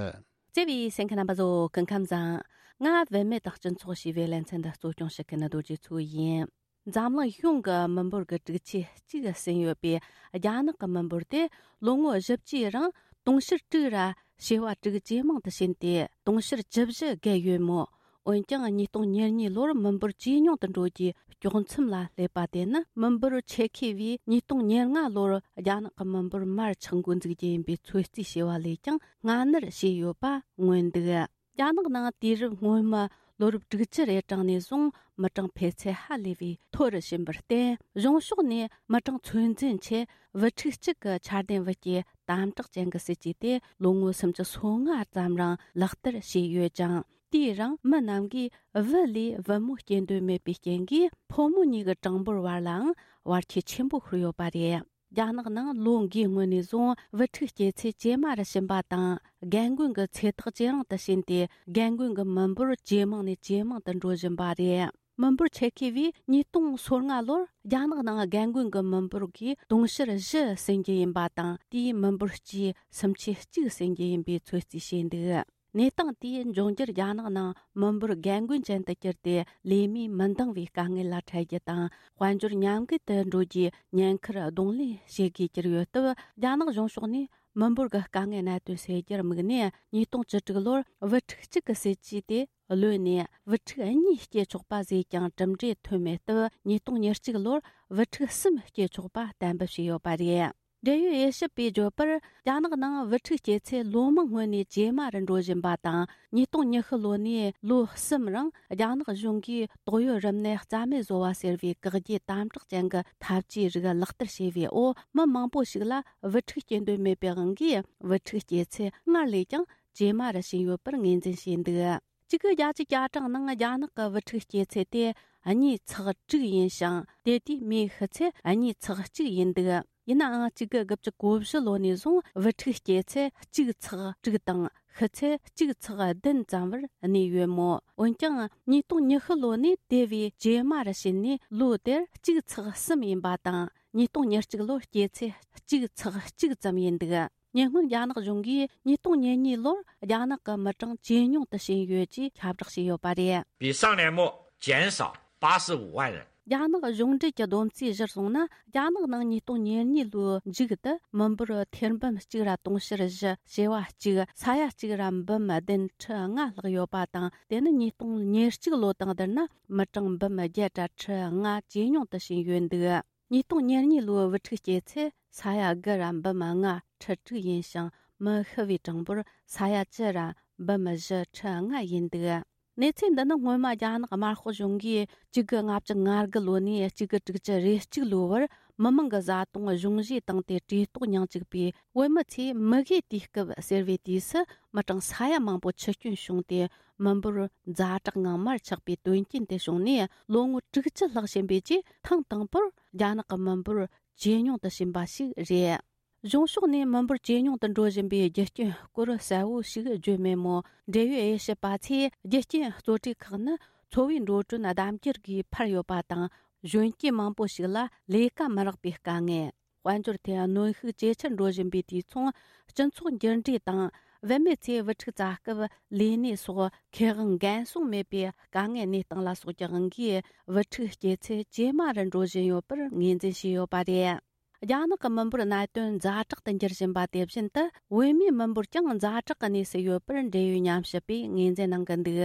བརྩེ་བའི་གསན་མཁན་རྣམ་པ་ཚོ་སྐུ་ཁམས་བཟང་། ང་བུད་མེད་དང་སྤྱི་ཚོགས་ཞེས་པའི་ལེ་ཚན་འདི་གཙོ་སྐྱོང་བྱེད་མཁན་རྡོ་རྗེ་མཚོ་ཡིན། འཛམ་གླིང་གཞུང་གི་མི་འབོར་གྱི་དྲུག་ཅུ་གཅིག་ཟིན་ཡོད་པའི་རྒྱ་ནག་གི་མི་འབོར་དེ་ལོ་ངོ་བཞི་བཅུའི་རིང་དུང་ཕྱུར་དྲུག་ར་བྱེ་བ་དྲུག་ཇེ་མང་དུ་ཕྱིན་ཏེ་དུང་ཕྱུར་བཅུ་བཞི་བརྒལ་ཡོད་མོད། འོན་ཀྱང་ཉིས་སྟོང་ཉེར་གཉིས་ལོར་མི་འབོར་ཇེ་ཉུང་དུ་འགྲོ་རྒྱུའི་དཀྱོག་མཚམས་ལ་སླེབས་པ་དེ་ནི་མི་འབོར་ཆེ་ཁེ་བས་ཉིས་སྟོང་ཉེར་ལྔ་ལོར་རྒྱ་ནག་གི་མི་འབོར་མར་ཆག་འགོ་འཛུགས་རྒྱུ་ཡིན་པའི་ཚོད་རྩིས་བྱས་པ་ལས་ཀྱང་སྔ་སྣུར་བྱས་ཡོད་པ་མངོན་འདུག་རྒྱ་ནག་ནང་དུས་རབས་སྔོན་མ་ལོ་རབས་དྲུག་ཅུ་རེ་གྲངས་ནས་བཟུང་མི་གྲངས་འཕེལ་ཚད་ཧ་ལས་པའི་མཐོ་རུ་ཕྱིན་པར་བརྟེན། གཞུང་ཕྱོགས་ནས་མི་གྲངས་ཚོད་འཛིན་ཆེད་བུ་ཕྲུག་གཅིག་གི་འཆར་ལྡན་བུ་སྐྱེས་དམ་དྲག་ཅན་གྱི་སྲིད་ཇུས་དེ་ལོ་ངོ་སུམ་ཅུ་སོ་ལྔ་ཙམ་རིང་ལག་བསྟར་བྱས་ཡོད་ཅིང་། དེའི་རིང་མི་རྣམས་ཀྱིས་བུ་ལས་བུ་མོ་སྐྱེ་འདོད་མེད་པའི་རྐྱེན་གྱིས་ཕོ་མོ་གཉིས་ཀྱི་གྲངས་འབོར་བར་ལའང་བར་ཁྱད་ཆེན་པོ་ཤོར་ཡོད་པ་རེད། རྒྱ་ནག་ནང་ལོ་འགའི་སྔོན་ནས་བཟུང་བུ་ཕྲུག་སྐྱེ་ཚད་ཇེ་དམའ་རུ་ཕྱིན་པ་དང་། རྒན་རྒོན་གྱི་ཚེ་ཐག་ཇེ་རིང་དུ་ཕྱིན་ཏེ། རྒན་རྒོན་གྱི་མི་འབོར་ཇེ་མང་ནས་ཇེ་མང་དུ་འགྲོ་བཞིན་པ་རེད། མི་འབོར་ཆེ་ཁེ་བས་ཉིས་སྟོང་སོ་ལྔ་ལོར་རྒྱ་ནག་ནང་རྒན་རྒོན་གྱི་མི་འབོར་གྱི་དུང་ཕྱུར་བཞི་ཟིན་རྒྱུ་ཡིན་པ་དང་། དེའི་མི་འབོར་སྤྱིའི་སུམ་ཆའི་གཅིག་ཟིན་རྒྱུ་ཡིན་པའི་ཚོད་རྩིས་བྱས་འདུག་གནས་སྟངས་དེས་འབྱུང་འགྱུར་རྒྱ་ནག་ནང་མི་འབོར་རྒན་རྒོན་ཅན་དུ་གྱུར་ཏེ། ལས་མིས་མི་འདང་བའི་དཀའ་ངལ་ལ་འཕྲད་རྒྱུ་དང་། དཔལ་འབྱོར་ཉམས་རྒུད་དུ་འགྲོ་རྒྱུའི་ཉེན་ཁར་གདོང་ལེན་བྱེད་དགོས་གྱུར་ཡོད་སྟབས། རྒྱ་ནག་གཞུང་ཕྱོགས་ནས་མི་འབོར་གྱི་དཀའ་ངལ་གནད་དོན་སེལ་རྒྱུར་དམིགས་ནས། ཉིས་སྟོང་བཅུ་དྲུག་ལོར་བུ་ཕྲུག་གཅིག་གི་སྲིད་ཇུས་དེ་གློད་ནས། བུ་ཕྲུག་གཉིས་སྐྱེ་ཆོག་པ་བཟོས་ཀྱང་གྲུབ་འབྲས་ཐོན་མེད་སྟབས། ཉིས་སྟོང་ཉེར་གཅིག་ལོར་བུ་ཕྲུག་གསུམ་སྐྱེ་ཆོག་པ་གཏན་འབེབས་བྱས་ཡོད་པ་རེད། འབྲེལ་ཡོད་དབྱེ་ཞིབ་པས་བརྗོད་པར། རྒྱ་ནག་ནང་བུ་ཕྲུག་སྐྱེ་ཚད་ལོ་མང་སྔོན་ནས་ཇེ་དམའ་རུ་འགྲོ་བཞིན་པ་དང་། ཉིས་སྟོང་ཉི་ཤུ་ལོ་ནས་ལོ་གསུམ་རིང་རྒྱ་ནག་གཞུང་གིས་དོགས་ཡོད་རིམས་ནད་རྩ་མེད་བཟོ་བ་ཟེར་བའི་བཀག་རྒྱའི་དམ་དྲག་ཅན་གྱི་ཐབས་ཇུས་རིགས་ལག་བསྟར་བྱས་པའི་འོག་མི་མང་པོ་ཞིག་ལ་བུ་ཕྲུག་སྐྱེ་འདོད་མེད་པའི་དབང་གིས། བུ་ཕྲུག་སྐྱེ་ཚད་སྔར་ལས་ཀྱང་ཇེ་དམའ་རུ་ཕྱིན་ཡོད་པར་ངོས་འཛིན་བྱས་འདུག་གཅིག་དགུ་བརྒྱད་ཅུ་གྱ་གྲངས་ནང་རྒྱ་ནག་གི་བུ་ཕྲུག་སྐྱེ་ཚད་དེ་གཉིས་ཚེག་དྲུག་ཡིན་ཞིང་། དེ་དུས་མིའི་ཤི་ཚད་གཉིས་ཚེག་གཅིག་ཡིན་འདུག་ཡིན་ནའང་། གཅིག་དགུ་དགུ་བཅུ་གོ་བཞི་ལོ་ནས་བཟུང་བུ་ཕྲུག་སྐྱེ་ཚད་གཅིག་ཚེག་དྲུག་དང་ཤི་ཚད་གཅིག་ཚེག་བདུན་ཙམ་བར་གནས་ཡོད་མོད། འོན་ཀྱང་། ཉིས་སྟོང་ཉི་ཤུ་ལོ་ནས་དེ་བས་ཇེ་དམའ་རུ་ཕྱིན་ནས། ལོ་དེར་གཅིག་ཚེག་གསུམ་ཡིན་པ་དང་། ཉིས་སྟོང་ཉེར་གཅིག་ལོར་སྐྱེ་ཚད་གཅིག་ཚེག་གཅིག་ཙམ་ཡིན་འདུག་ཉེ་སྔོན་རྒྱ་ནག་གཞུང་གིས་ཉིས་སྟོང་ཉེར་གཉིས་ལོར་རྒྱ་ནག་གི་མི་གྲངས་ཇེ་ཉུང་དུ་ཕྱིན་ཡོད་ཅེས་ཁྱབ་བསྒྲགས་བྱས་ཡོད་པ་རེད། 比上年末减少八十五万人。 རྒྱ་ནག་གཞུང་འབྲེལ་གྱི་བསྡོམས་རྩིས་གཞིར་བཟུང་ན། རྒྱ་ནག་ནང་ཉིས་སྟོང་ཉེར་གཉིས་ལོའི་མཇུག་ཏུ་མི་འབོར་ཐེར་འབུམ་གཅིག་ར་དུང་ཕྱུར་བཞི་བྱེ་བ་གཅིག་ས་ཡ་གཅིག་ར་འབུམ་བདུན་ཁྲི་ལྔ་ལྷག་ཡོད་པ་དང་། དེ་ནི་ཉིས་སྟོང་ཉེར་གཅིག་ལོ་དང་བསྡུར་ན་མི་གྲངས་འབུམ་བརྒྱད་ར་ཁྲི་ལྔ་ཇེ་ཉུང་དུ་ཕྱིན་ཡོད་འདུག་ཉིས་སྟོང་ཉེར་གཉིས་ལོའི་བུ་ཕྲུག་སྐྱེ་ཚད་ས་ཡ་དགུ་ར་འབུམ་ལྔ་ཁྲི་དྲུག་ཡིན་ཞིང་། མི་ཤི་བའི་གྲངས་འབོར་ས་ཡ་བཅུ་ར་འབུམ་བཞི་ཁྲི་ལྔ་ཡིན་འདུག་གནས་ཚུལ་འདི་ནི་སྔོན་མ་རྒྱ་ནག་དམར་ཤོག་གཞུང་གིས་གཅིག་དགུ་ལྔ་བཅུ་ང་དགུ་ལོ་ནས་གཅིག་དགུ་དྲུག་ཅུ་རེ་གཅིག་ལོའི་བར་མི་མང་གི་བཟའ་བཏུང་གཞུང་བཞེས་བཏང་སྟེ་བཀྲེས་ལྟོགས་མྱངས་བཅུག་པའི་བོད་མི་ཚོས་མུ་གེའི་དུས་སྐབས་ཟེར་བའི་དུས་སུ་མི་གྲངས་ས་ཡ་མང་པོ་འཆི་སྐྱོན་བྱུང་སྟེ། མི་འབོར་ཛ་དྲག་ངང་མར་ཆག་པའི་དོན་རྐྱེན་དེ་བྱུང་ནས། ལོ་ངོ་དྲུག་ཅུ་ལྷག་ཕྱིན་པའི་རྗེས་ཐེངས་དང་པོར་རྒྱ་ནག་གི་མི་འབོར་ཇེ་ཉུང་དུ་ཕྱིན་པ་ཞིག་རེད། གཞུང་ཕྱོགས་ནས་མི་འབོར་ཇེ་ཉུང་དུ་འགྲོ་བཞིན་པའི་རྒྱུ་རྐྱེན་སྐོར་གསལ་བོ་ཞིག་བརྗོད་མེད་མོད། འབྲེལ་ཡོད་དབྱེ་ཞིབ་པ་ཚོས་རྒྱུ་རྐྱེན་གཙོ་གྲས་ཁག་ནི་འཚོ་བའི་འགྲོ་གྲོན་ལྡབ་འགྱུར་གྱིས་འཕར་ཡོད་པ་དང་། གཞོན་སྐྱེས་མང་པོ་ཞིག་ལ་ལས་ཀ་མི་རག་པའི་དཀའ་ངལ། དཔལ་འབྱོར་ཐད་གནོན་ཤུགས་ཇེ་ཆེར་འགྲོ་བཞིན་པའི་དུས་མཚུངས། སྤྱི་ཚོགས་འགྱུར་འགྲོས་དང་། བུད་མེད་ཚོས་བུ་ཕྲུག་བཙའ་སྐབས་ལས་གནས་སོགས་ཁེ་དབང་འགན་སྲུང་མེད་པའི་དཀའ་ངལ་གནས་སྟངས་ལ་སོགས་ཀྱི་དབང་གིས། བུ་ཕྲུག་སྐྱེ་ཚད་ཇེ་དམའ་རུ་འགྲོ་བཞིན་ཡོད་པར་ངོས་འཛིན་བྱས་ཡོད་པ་རེད། རྒྱ་ནག་གི་མི་འབོར་གནད་དོན་ཛ་དྲག་ཏུ་འགྱུར་བཞིན་པ་དེ་བཞིན་དུ། བོད་མིའི་མི་འབོར་ཀྱང་ཛ་དྲག་གི་གནས་སུ་ཡོད་པར་འབྲེལ་ཡོད་ཉམས་ཞིབ་པས་ངོས་འཛིན་གནང་གི་འདུག་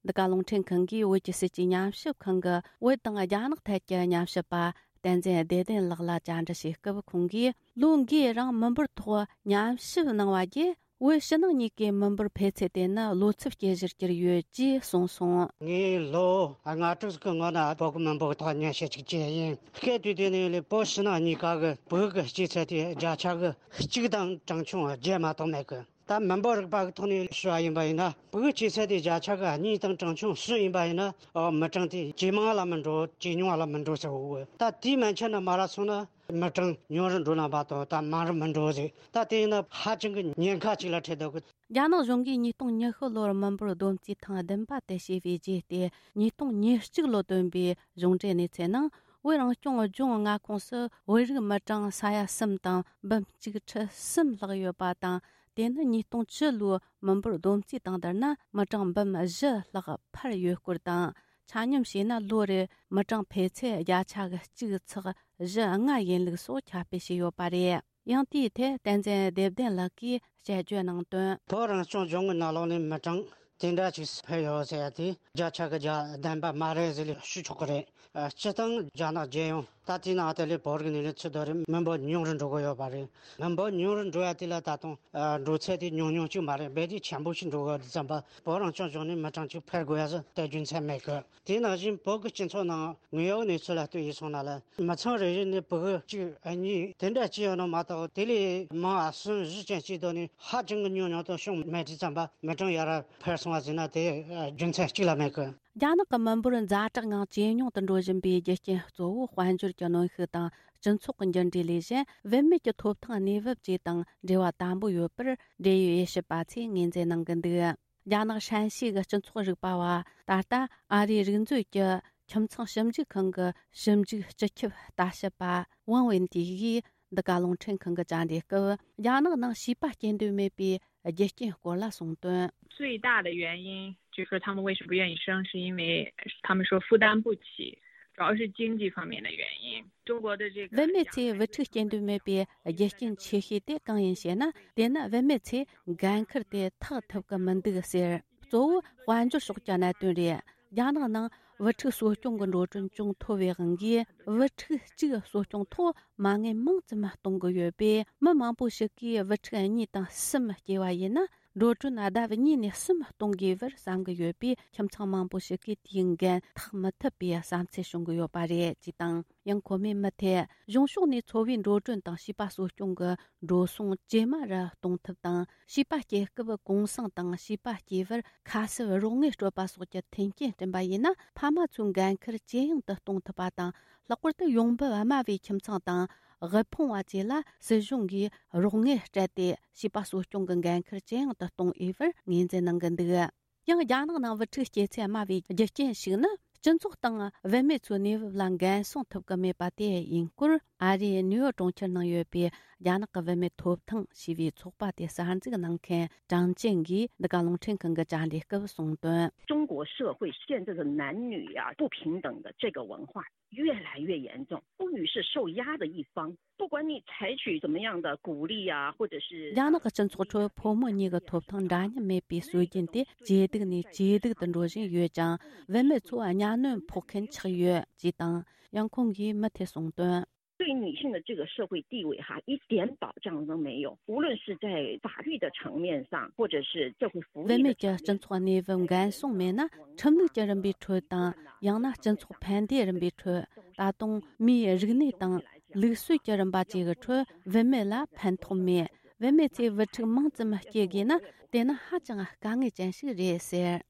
འདི་ག་རླུང་འཕྲིན་ཁང་གིས་བོད་ཀྱི་སྲིད་ཇུས་ཉམས་ཞིབ་ཁང་གི་བོད་དང་རྒྱ་ནག་ཐད་ཀྱི་ཉམས་ཞིབ་པ་བསྟན་འཛིན་བདེ་ལྡན་ལགས་ལ་བཅར་འདྲི་བྱེད་སྐབས། ཁོང་གིས་ལོ་འགའི་རིང་མི་འབོར་ཐོག་ཉམས་ཞིབ་གནང་བ་བརྒྱུད། བོད་ཕྱི་ནང་གཉིས་ཀའི་མི་འབོར་འཕེལ་ཚད་དེ་ནི་ལོ་ཚབས་སྐྱེ་གཞིར་གྱུར་ཡོད་ཅེས་གསུངས་སོང་། ངས་ལོ་ལྔ་དྲུག་གི་སྔོན་ན་བོད་ཀྱི་མི་འབོར་ཐོག་ཉམས་ཞིབ་ཅིག་བྱས་ཡིན། སྐད་དུས་དེ་ནས་ལས་བོད་ཕྱི་ནང་གཉིས་ཀ་གི་བོད་ཀྱི་སྐྱེ་ཚད་དེ་བརྒྱ་ཆ་གི་གཅིག་དང་གྲངས་ཆུང་བརྒྱད་མ་གཏོགས་མེད་གི། ད་མི་འབོར་རིག་པ་གི་ཐོག་ནས་ཞུ་བ་ཡིན་པ་ཡིན་ན། བོད་སྐྱེ་ཚད་དེ་བརྒྱ་ཆ་གི་གཉིས་དང་གྲངས་ཆུང་གསུམ་ཡིན་པ་ཡིན་ན། ཨོ། མི་གྲངས་དེ་ཇེ་མང་ལ་མི་འགྲོ། ཇེ་ཉུང་ལ་མི་འགྲོ་ཟེར་བ། ད་དེའི་མན་ཆད་ནས་མར་སོང་ན་མི་གྲངས་ཉུང་རུ་འགྲོ་ན་མ་གཏོགས་ད་མང་རུ་མི་འགྲོ་ཟེར། ད་དེ་ཡིན་ན་ཧ་ཅང་གི་ཉེན་ཁ་ཅིག་ལ་འཕྲད་འདུག་གི། རྒྱ་ནག་གཞུང་གིས་ཉིས་སྟོང་ཉི་ཤུ་ལོར་མི་འབོར་བསྡོམས་རྩིས་ཐེངས་བདུན་པ་དེ་བྱས་པའི་རྗེས་ཏེ། ཉིས་སྟོང་ཉེར་གཅིག་ལོ་བཏོན་པའི་གཞུང་འབྲེལ་གནས་ཚད་ནང་ ། བོད་རང་སྐྱོང་ལྗོངས་མངའ་ཁོངས་སུ་བོད་རིགས་མི་གྲངས་ས་ཡ་གསུམ་དང་འབུམ་གཅིག་ཁྲི་གསུམ་ལྷག་ཡོད་པ་དང་། དེ་ནི་ཉིས་སྟོང་བཅུ་ལོའི་མི་འབོར་བསྡོམས་རྩིས་དང་བསྡུར་ན་མི་གྲངས་འབུམ་བཞི་ལྷག་འཕར་ཡོད་སྐོར་དང་། ཆ་སྙོམས་བྱས་ན་ལོ་རེར་མི་གྲངས་འཕེལ་ཚད་བརྒྱ་ཆ་གཅིག་ཚེག་བཞི་ལྔ་ཡིན་ལུགས་སོགས་ཁྱབ་སྤེལ་བྱས་ཡོད་པ་རེད། ཡང་དེའི་ཐད་བསྟན་འཛིན་བདེ་ལྡན་ལགས་ཀྱིས་དཔྱད་བརྗོད་གནང་དོན། བོད་རང་སྐྱོང་ལྗོངས་ཀྱི་ནང་ལོགས་ནས་མི་གྲངས་དེ་འདྲ་ཅིག་འཕེལ་ཡོད་ཟེར་ཡ་དེ་བརྒྱ་ཆ་གི་བརྒྱ་བདེན་པ་མ་རེད་ཟེར་ལས་ཞུ་ཆོག་གི་རེད། སྤྱིར་བཏང་རྒྱ་ནག་རྒྱལ་ཡོངས་ད་ལྟའི་ནང་དེ་ལས་བོད་རིགས་ནས་ནས་ཚུར་དོ་རེད། མི་འབོར་ཉུང་རུ་འགྲོ་གི་ཡོད་པ་རེད། མི་འབོར་ཉུང་རུ་འགྲོ་ཡ་དེ་ལ་ད་དུང་འགྲོ་ཚད་དེ་ཉུང་ཉུང་ཅིག་མ་རེད། རྦད་དེ་ཆེན་པོ་ཞིག་འགྲོ་གི་ཡོད་དུས་ཙམ་པ་བོད་རང་སྐྱོང་ལྗོངས་ནས་མི་གྲངས་ཅིག་འཕེལ་དགོས་ཡ་ཟེར་དེ་རྒྱུ་མཚན་མེད་གི། དེ་ནང་བཞིན་བོད་ཀྱི་སྤྱི་ཚོགས་ནང་དངོས་ཡོད་གནས་ཚུལ་ལ་ལྟོས་ཡིན་སོང་ན་ལ་མི་ཚང་རེ་རེ་ནས་ཕྲུ་གུ་གཅིག་གཉིས་དེ་འདྲ་སྐྱེས་ཡོད་ནོ་མ་གཏོགས་དེ་ལས་མང་བ་གསུམ་བཞི་ཅན་སྐྱེས་དོ་ནི་ཧ་ཅང་གི་ཉུང་ཉུང་དུ་བྱུང་མེད་དུས་ཙམ་པ་མི་གྲངས་ཡར་འཕར་སོང་བ་ཟེར་ན་དེ་རྒྱུ་མཚན་གཅིག་ལ་མེད་གི། རྒྱ་ནག་གི་མི་འབོར་ཛ་དྲག་ངང་ཇེ་ཉུང་དུ་འགྲོ་བཞིན་པའི་རྒྱུ་རྐྱེན་གཙོ་བོ་དཔལ་འབྱོར་གྱི་གནོན་ཤུགས་དང་སྤྱི་ཚོགས་ཀྱི་འགྱུར་འགྲོས་ལས་གཞན་བུད་མེད་ཀྱི་ཐོབ་ཐང་གནས་བབ་བཅས་དང་འབྲེལ་བ་དམ་པོ་ཡོད་པར་འབྲེལ་ཡོད་དབྱེ་ཞིབ་པ་ཚོས་ངོས་འཛིན་གནང་གི་འདུག། རྒྱ་ནག་ཧྲན་ཞི་གི་སྤྱི་ཚོགས་རིག་པ་བ། ད་ལྟ་ཨ་རིའི་རིག་མཛོད་ཀྱི་ཁྱིམ་ཚང་ཞིབ་འཇུག་ཁང་གི་ཞིབ་འཇུག་སྤྱི་ཁྱབ་ལྟ་ཞིབ་པ་ཝང་ཝེན་ཏི་ཡིས་འདི་ག་རླུང་འཕྲིན་ཁང་གི་བཅར་འདྲི་སྐབས། རྒྱ་ནག་ནང་བྱིས་པ་སྐྱེ་འདོད་མེད་པའི་རྒྱུ་རྐྱེན་སྐོར་ལ་གསུངས་དོན། 最大的原因就是说他们为什么不愿意生，是因为他们说负担不起，主要是经济方面的原因。中国的这个 བུད་མེད་ཚོས་བུ་ཕྲུག་སྐྱེ་འདོད་མེད་པའི་རྒྱུ་རྐྱེན་ཆེ་ཤོས་དེ་གང་ཡིན་ཞེ་ན། དེ་ནི་བུད་མེད་ཚོས་འགན་འཁུར་དེ་ཐག་ཐུབ་ཀྱི་མི་འདུག་ཟེར། གཙོ་བོ་དཔལ་འབྱོར་ཕྱོགས་ཀྱི་གནད་དོན་རེད། རྒྱ་ནག་ནང་བུ་ཕྲུག་གསོ་སྐྱོང་གི་འགྲོ་གྲོན་ཅུང་མཐོ་བའི་དབང་གིས། བུ་ཕྲུག་གཅིག་གསོ་སྐྱོང་ཐོག་མ་དངུལ་མང་ཙམ་གཏོང་གི་ཡོད་པས། མི་མང་པོ་ཞིག་གིས་བུ་ཕྲུག་གཉིས་དང་གསུམ་སྐྱེས་པ་ཡིན་ན། འགྲོ་གྲོན་ལྡབ་གཉིས་ནས་གསུམ་གཏོང་དགོས་པར་བསམ་གྱི་ཡོད་པས། ཁྱིམ་ཚང་མང་པོ་ཞིག་གིས་དེའི་འགན་འཐག་མི་ཐུབ་པའི་བསམ་ཚུལ་བྱུང་གི་ཡོད་པ་རེད་ཅེས་དང་། ཡང་ཁོ་མོས་མུ་མཐུད་གཞུང་ཕྱོགས་ནས་འཚོ་བའི་འགྲོ་གྲོན་དང་བྱིས་པ་གསོ་སྐྱོང་གི་འགྲོ་སོང་ཇེ་དམའ་རུ་གཏོང་ཐབས་དང་། བྱིས་པ་སྐྱེ་སྐབས་གུང་སེང་དང་བྱིས་པ་སྐྱེས་པར་ཁ་གསབ་རོགས་དངུལ་སྤྲོད་པ་སོགས་ཀྱི་མཐུན་རྐྱེན་བསྐྲུན་པ་ཡིན་ན། ཕ་མ་ཚོའི་འགན་འཁུར་ཇེ་ཡང་དུ་གཏོང་ཐུབ་པ་དང་། ལྷག་པར་དུ་ཡོང་འབབ་དམའ་བའི་ཁྱིམ་ཚང་དང་། དབུལ་ཕོངས་པ་བཅས་ལ་སྲིད་གཞུང་གིས་རོགས་དངུལ་སྤྲད་དེ། བྱིས་པ་གསོ་སྐྱོང་གི་འགན་འཁུར་ཇེ་ཡང་དུ་གཏོང་འོས་པར་ངོས་འཛིན་གནང་གི་འདུག། ཡང་རྒྱ་ནག་ནང་བུ་ཕྲུག་སྐྱེ་ཚད་དམའ་བའི་རྒྱུ་རྐྱེན་ཞིག་ནི། སྤྱི་ཚོགས་དང་བུད་མེད་ཚོའི་གནས་བབ་ལ་འགན་སྲུང་ཐུབ་ཀྱི་མེད་པ་དེ་ཡིན་སྐོར། ཨ་རིའི་ནིའུ་ཡོག་གྲོང་ཁྱེར་ནང་ཡོད་པའི་རྒྱ་ནག་གི་བུད་མེད་ཐོབ་ཐང་ཞེས་པའི་ཚོགས་པ་དེ་གསར་འཛུགས་གནང་མཁན་ཀྲང་ཅན་གྱིས་འདི་ག་རླུང་འཕྲིན་ཁང་གི་བཅར་འདྲི་སྐབས་གསུངས་དོན། 中国社会现在的男女呀、不平等的这个文化越来越严重，妇女是受压的一方。不管你采取怎么样的鼓励呀、或者是 རྒྱ་ནག་གི་སྤྱི་ཚོགས་ཁྲོད་ཕོ་མོ་གཉིས་ཀྱི་ཐོབ་ཐང་འདྲ་མཉམ་མེད་པའི་སྲོལ་རྒྱུན་དེ་ཇེ་སྡུག་ནས་ཇེ་སྡུག་ཏུ་འགྲོ་བཞིན་ཡོད་ཅིང་། བུད་མེད་ཚོ་གཉའ་གནོན་ཕོག་མཁན་ཆགས་ཡོད་ཅེས་དང་། ཡང་ཁོང་གིས་མུ་མཐུད་གསུངས་དོན། 对女性的这个社会地位哈，一点保障都没有。无论是在法律的层面上，或者是社会福利 བུད་的 མེད་ཀྱི་སྤྱི་ཚོགས་གནས་བབ་འགན་སྲུང་མེད་ན། ཁྲིམས་ལུགས་ཀྱི་རིམ་པའི་ཁྲོད་དང་། ཡང་ན་སྤྱི་ཚོགས་ཕན་བདེའི་རིམ་པའི་ཁྲོད། ད་དུང་མིའི་རིག་གནས་དང་ལུགས་སྲོལ་གྱི་རིམ་པ་བཅས་ཀྱི་ཁྲོད་བུད་མེད་ལ་ཕན་ཐོགས་མེད། བུད་མེད་ཚོས་བུ་ཕྲུག་མང་ཙམ་སྐྱེ་དགོས་ན། དེ་ནི་ཧ་ཅང་དཀའ་ངལ་ཅན་ཞིག་རེད་ཟེར།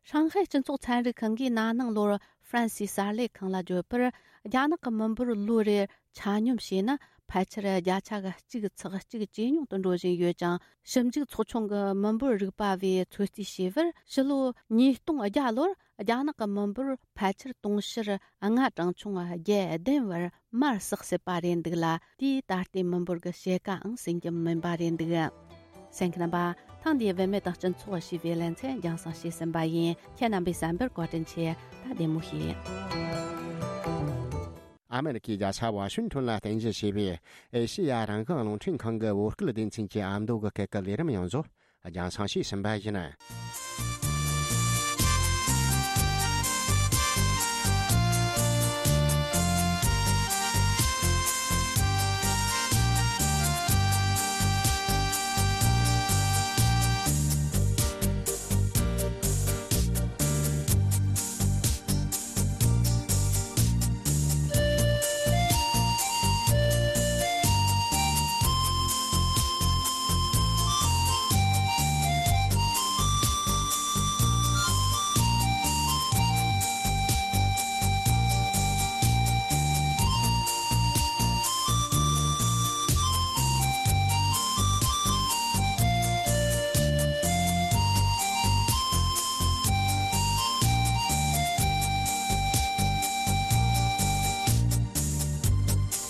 ཧྲང་ཧའེ་སྤྱི་ཚོགས་ཚན་རིག་ཁང་གིས་ན་ནིང་ལོར་ཧྥ་རན་སིའི་གསར་ལས་ཁང་ལ་བརྗོད་པར། རྒྱ་ནག་གི་མི་འབོར་ལོ་རེར་ཆ་སྙོམས་བྱས་ན་ཕལ་ཆེར་བརྒྱ་ཆ་གཅིག་ཚེག་གཅིག་ཇེ་ཉུང་དུ་འགྲོ་བཞིན་ཡོད་ཅིང་། ཞིབ་འཇུག་ཚོགས་ཆུང་གི་མི་འབོར་རིག་པ་བས་ཚོད་རྩིས་བྱས་པར། ཕྱི་ལོ་ཉིས་སྟོང་བརྒྱ་ལོར་རྒྱ་ནག་གི་མི་འབོར་ཕལ་ཆེར་དུང་ཕྱུར་ལྔ་གྲངས་ཆུང་བརྒྱད་བདུན་བར་མར་ཟགས་སྲིད་པ་རེད་འདུག་ལ། དེས་ད་ལྟའི་མི་འབོར་གྱི་ཕྱེད་ཀའང་ཟིན་རྒྱུ་མིན་པ་རེད་འདུག། གསན་མཁན་རྣམ་པ། ཐེངས་འདིའི་བུད་མེད་དང་སྤྱི་ཚོགས་ཞེས་པའི་ལེ་ཚན་རྒྱང་སྲིང་བྱས་ཟིན་པ་ཡིན། ཁྱེད་རྣམ་པས་གསན་པར་བཀའ་དྲིན་ཆེ། ད་བདེ་མོ་བྱོས། ཨ་མེ་རི་ཁའི་རྒྱལ་ས་ཝ་ཤིང་ཐོན་ལ་རྟེན་གཞི་བྱས་པའི་ཨེ་ཤེ་ཡ་རང་དབང་རླུང་འཕྲིན་ཁང་གི་བོད་སྐད་སྡེ་ཚན་གྱི་ཨ་མདོ་གི་སྐད་ཀྱི་ལས་རིམ་ཡང་བཟོ་རྒྱང་སྲིང་བྱས་ཟིན་པ་ཡིན།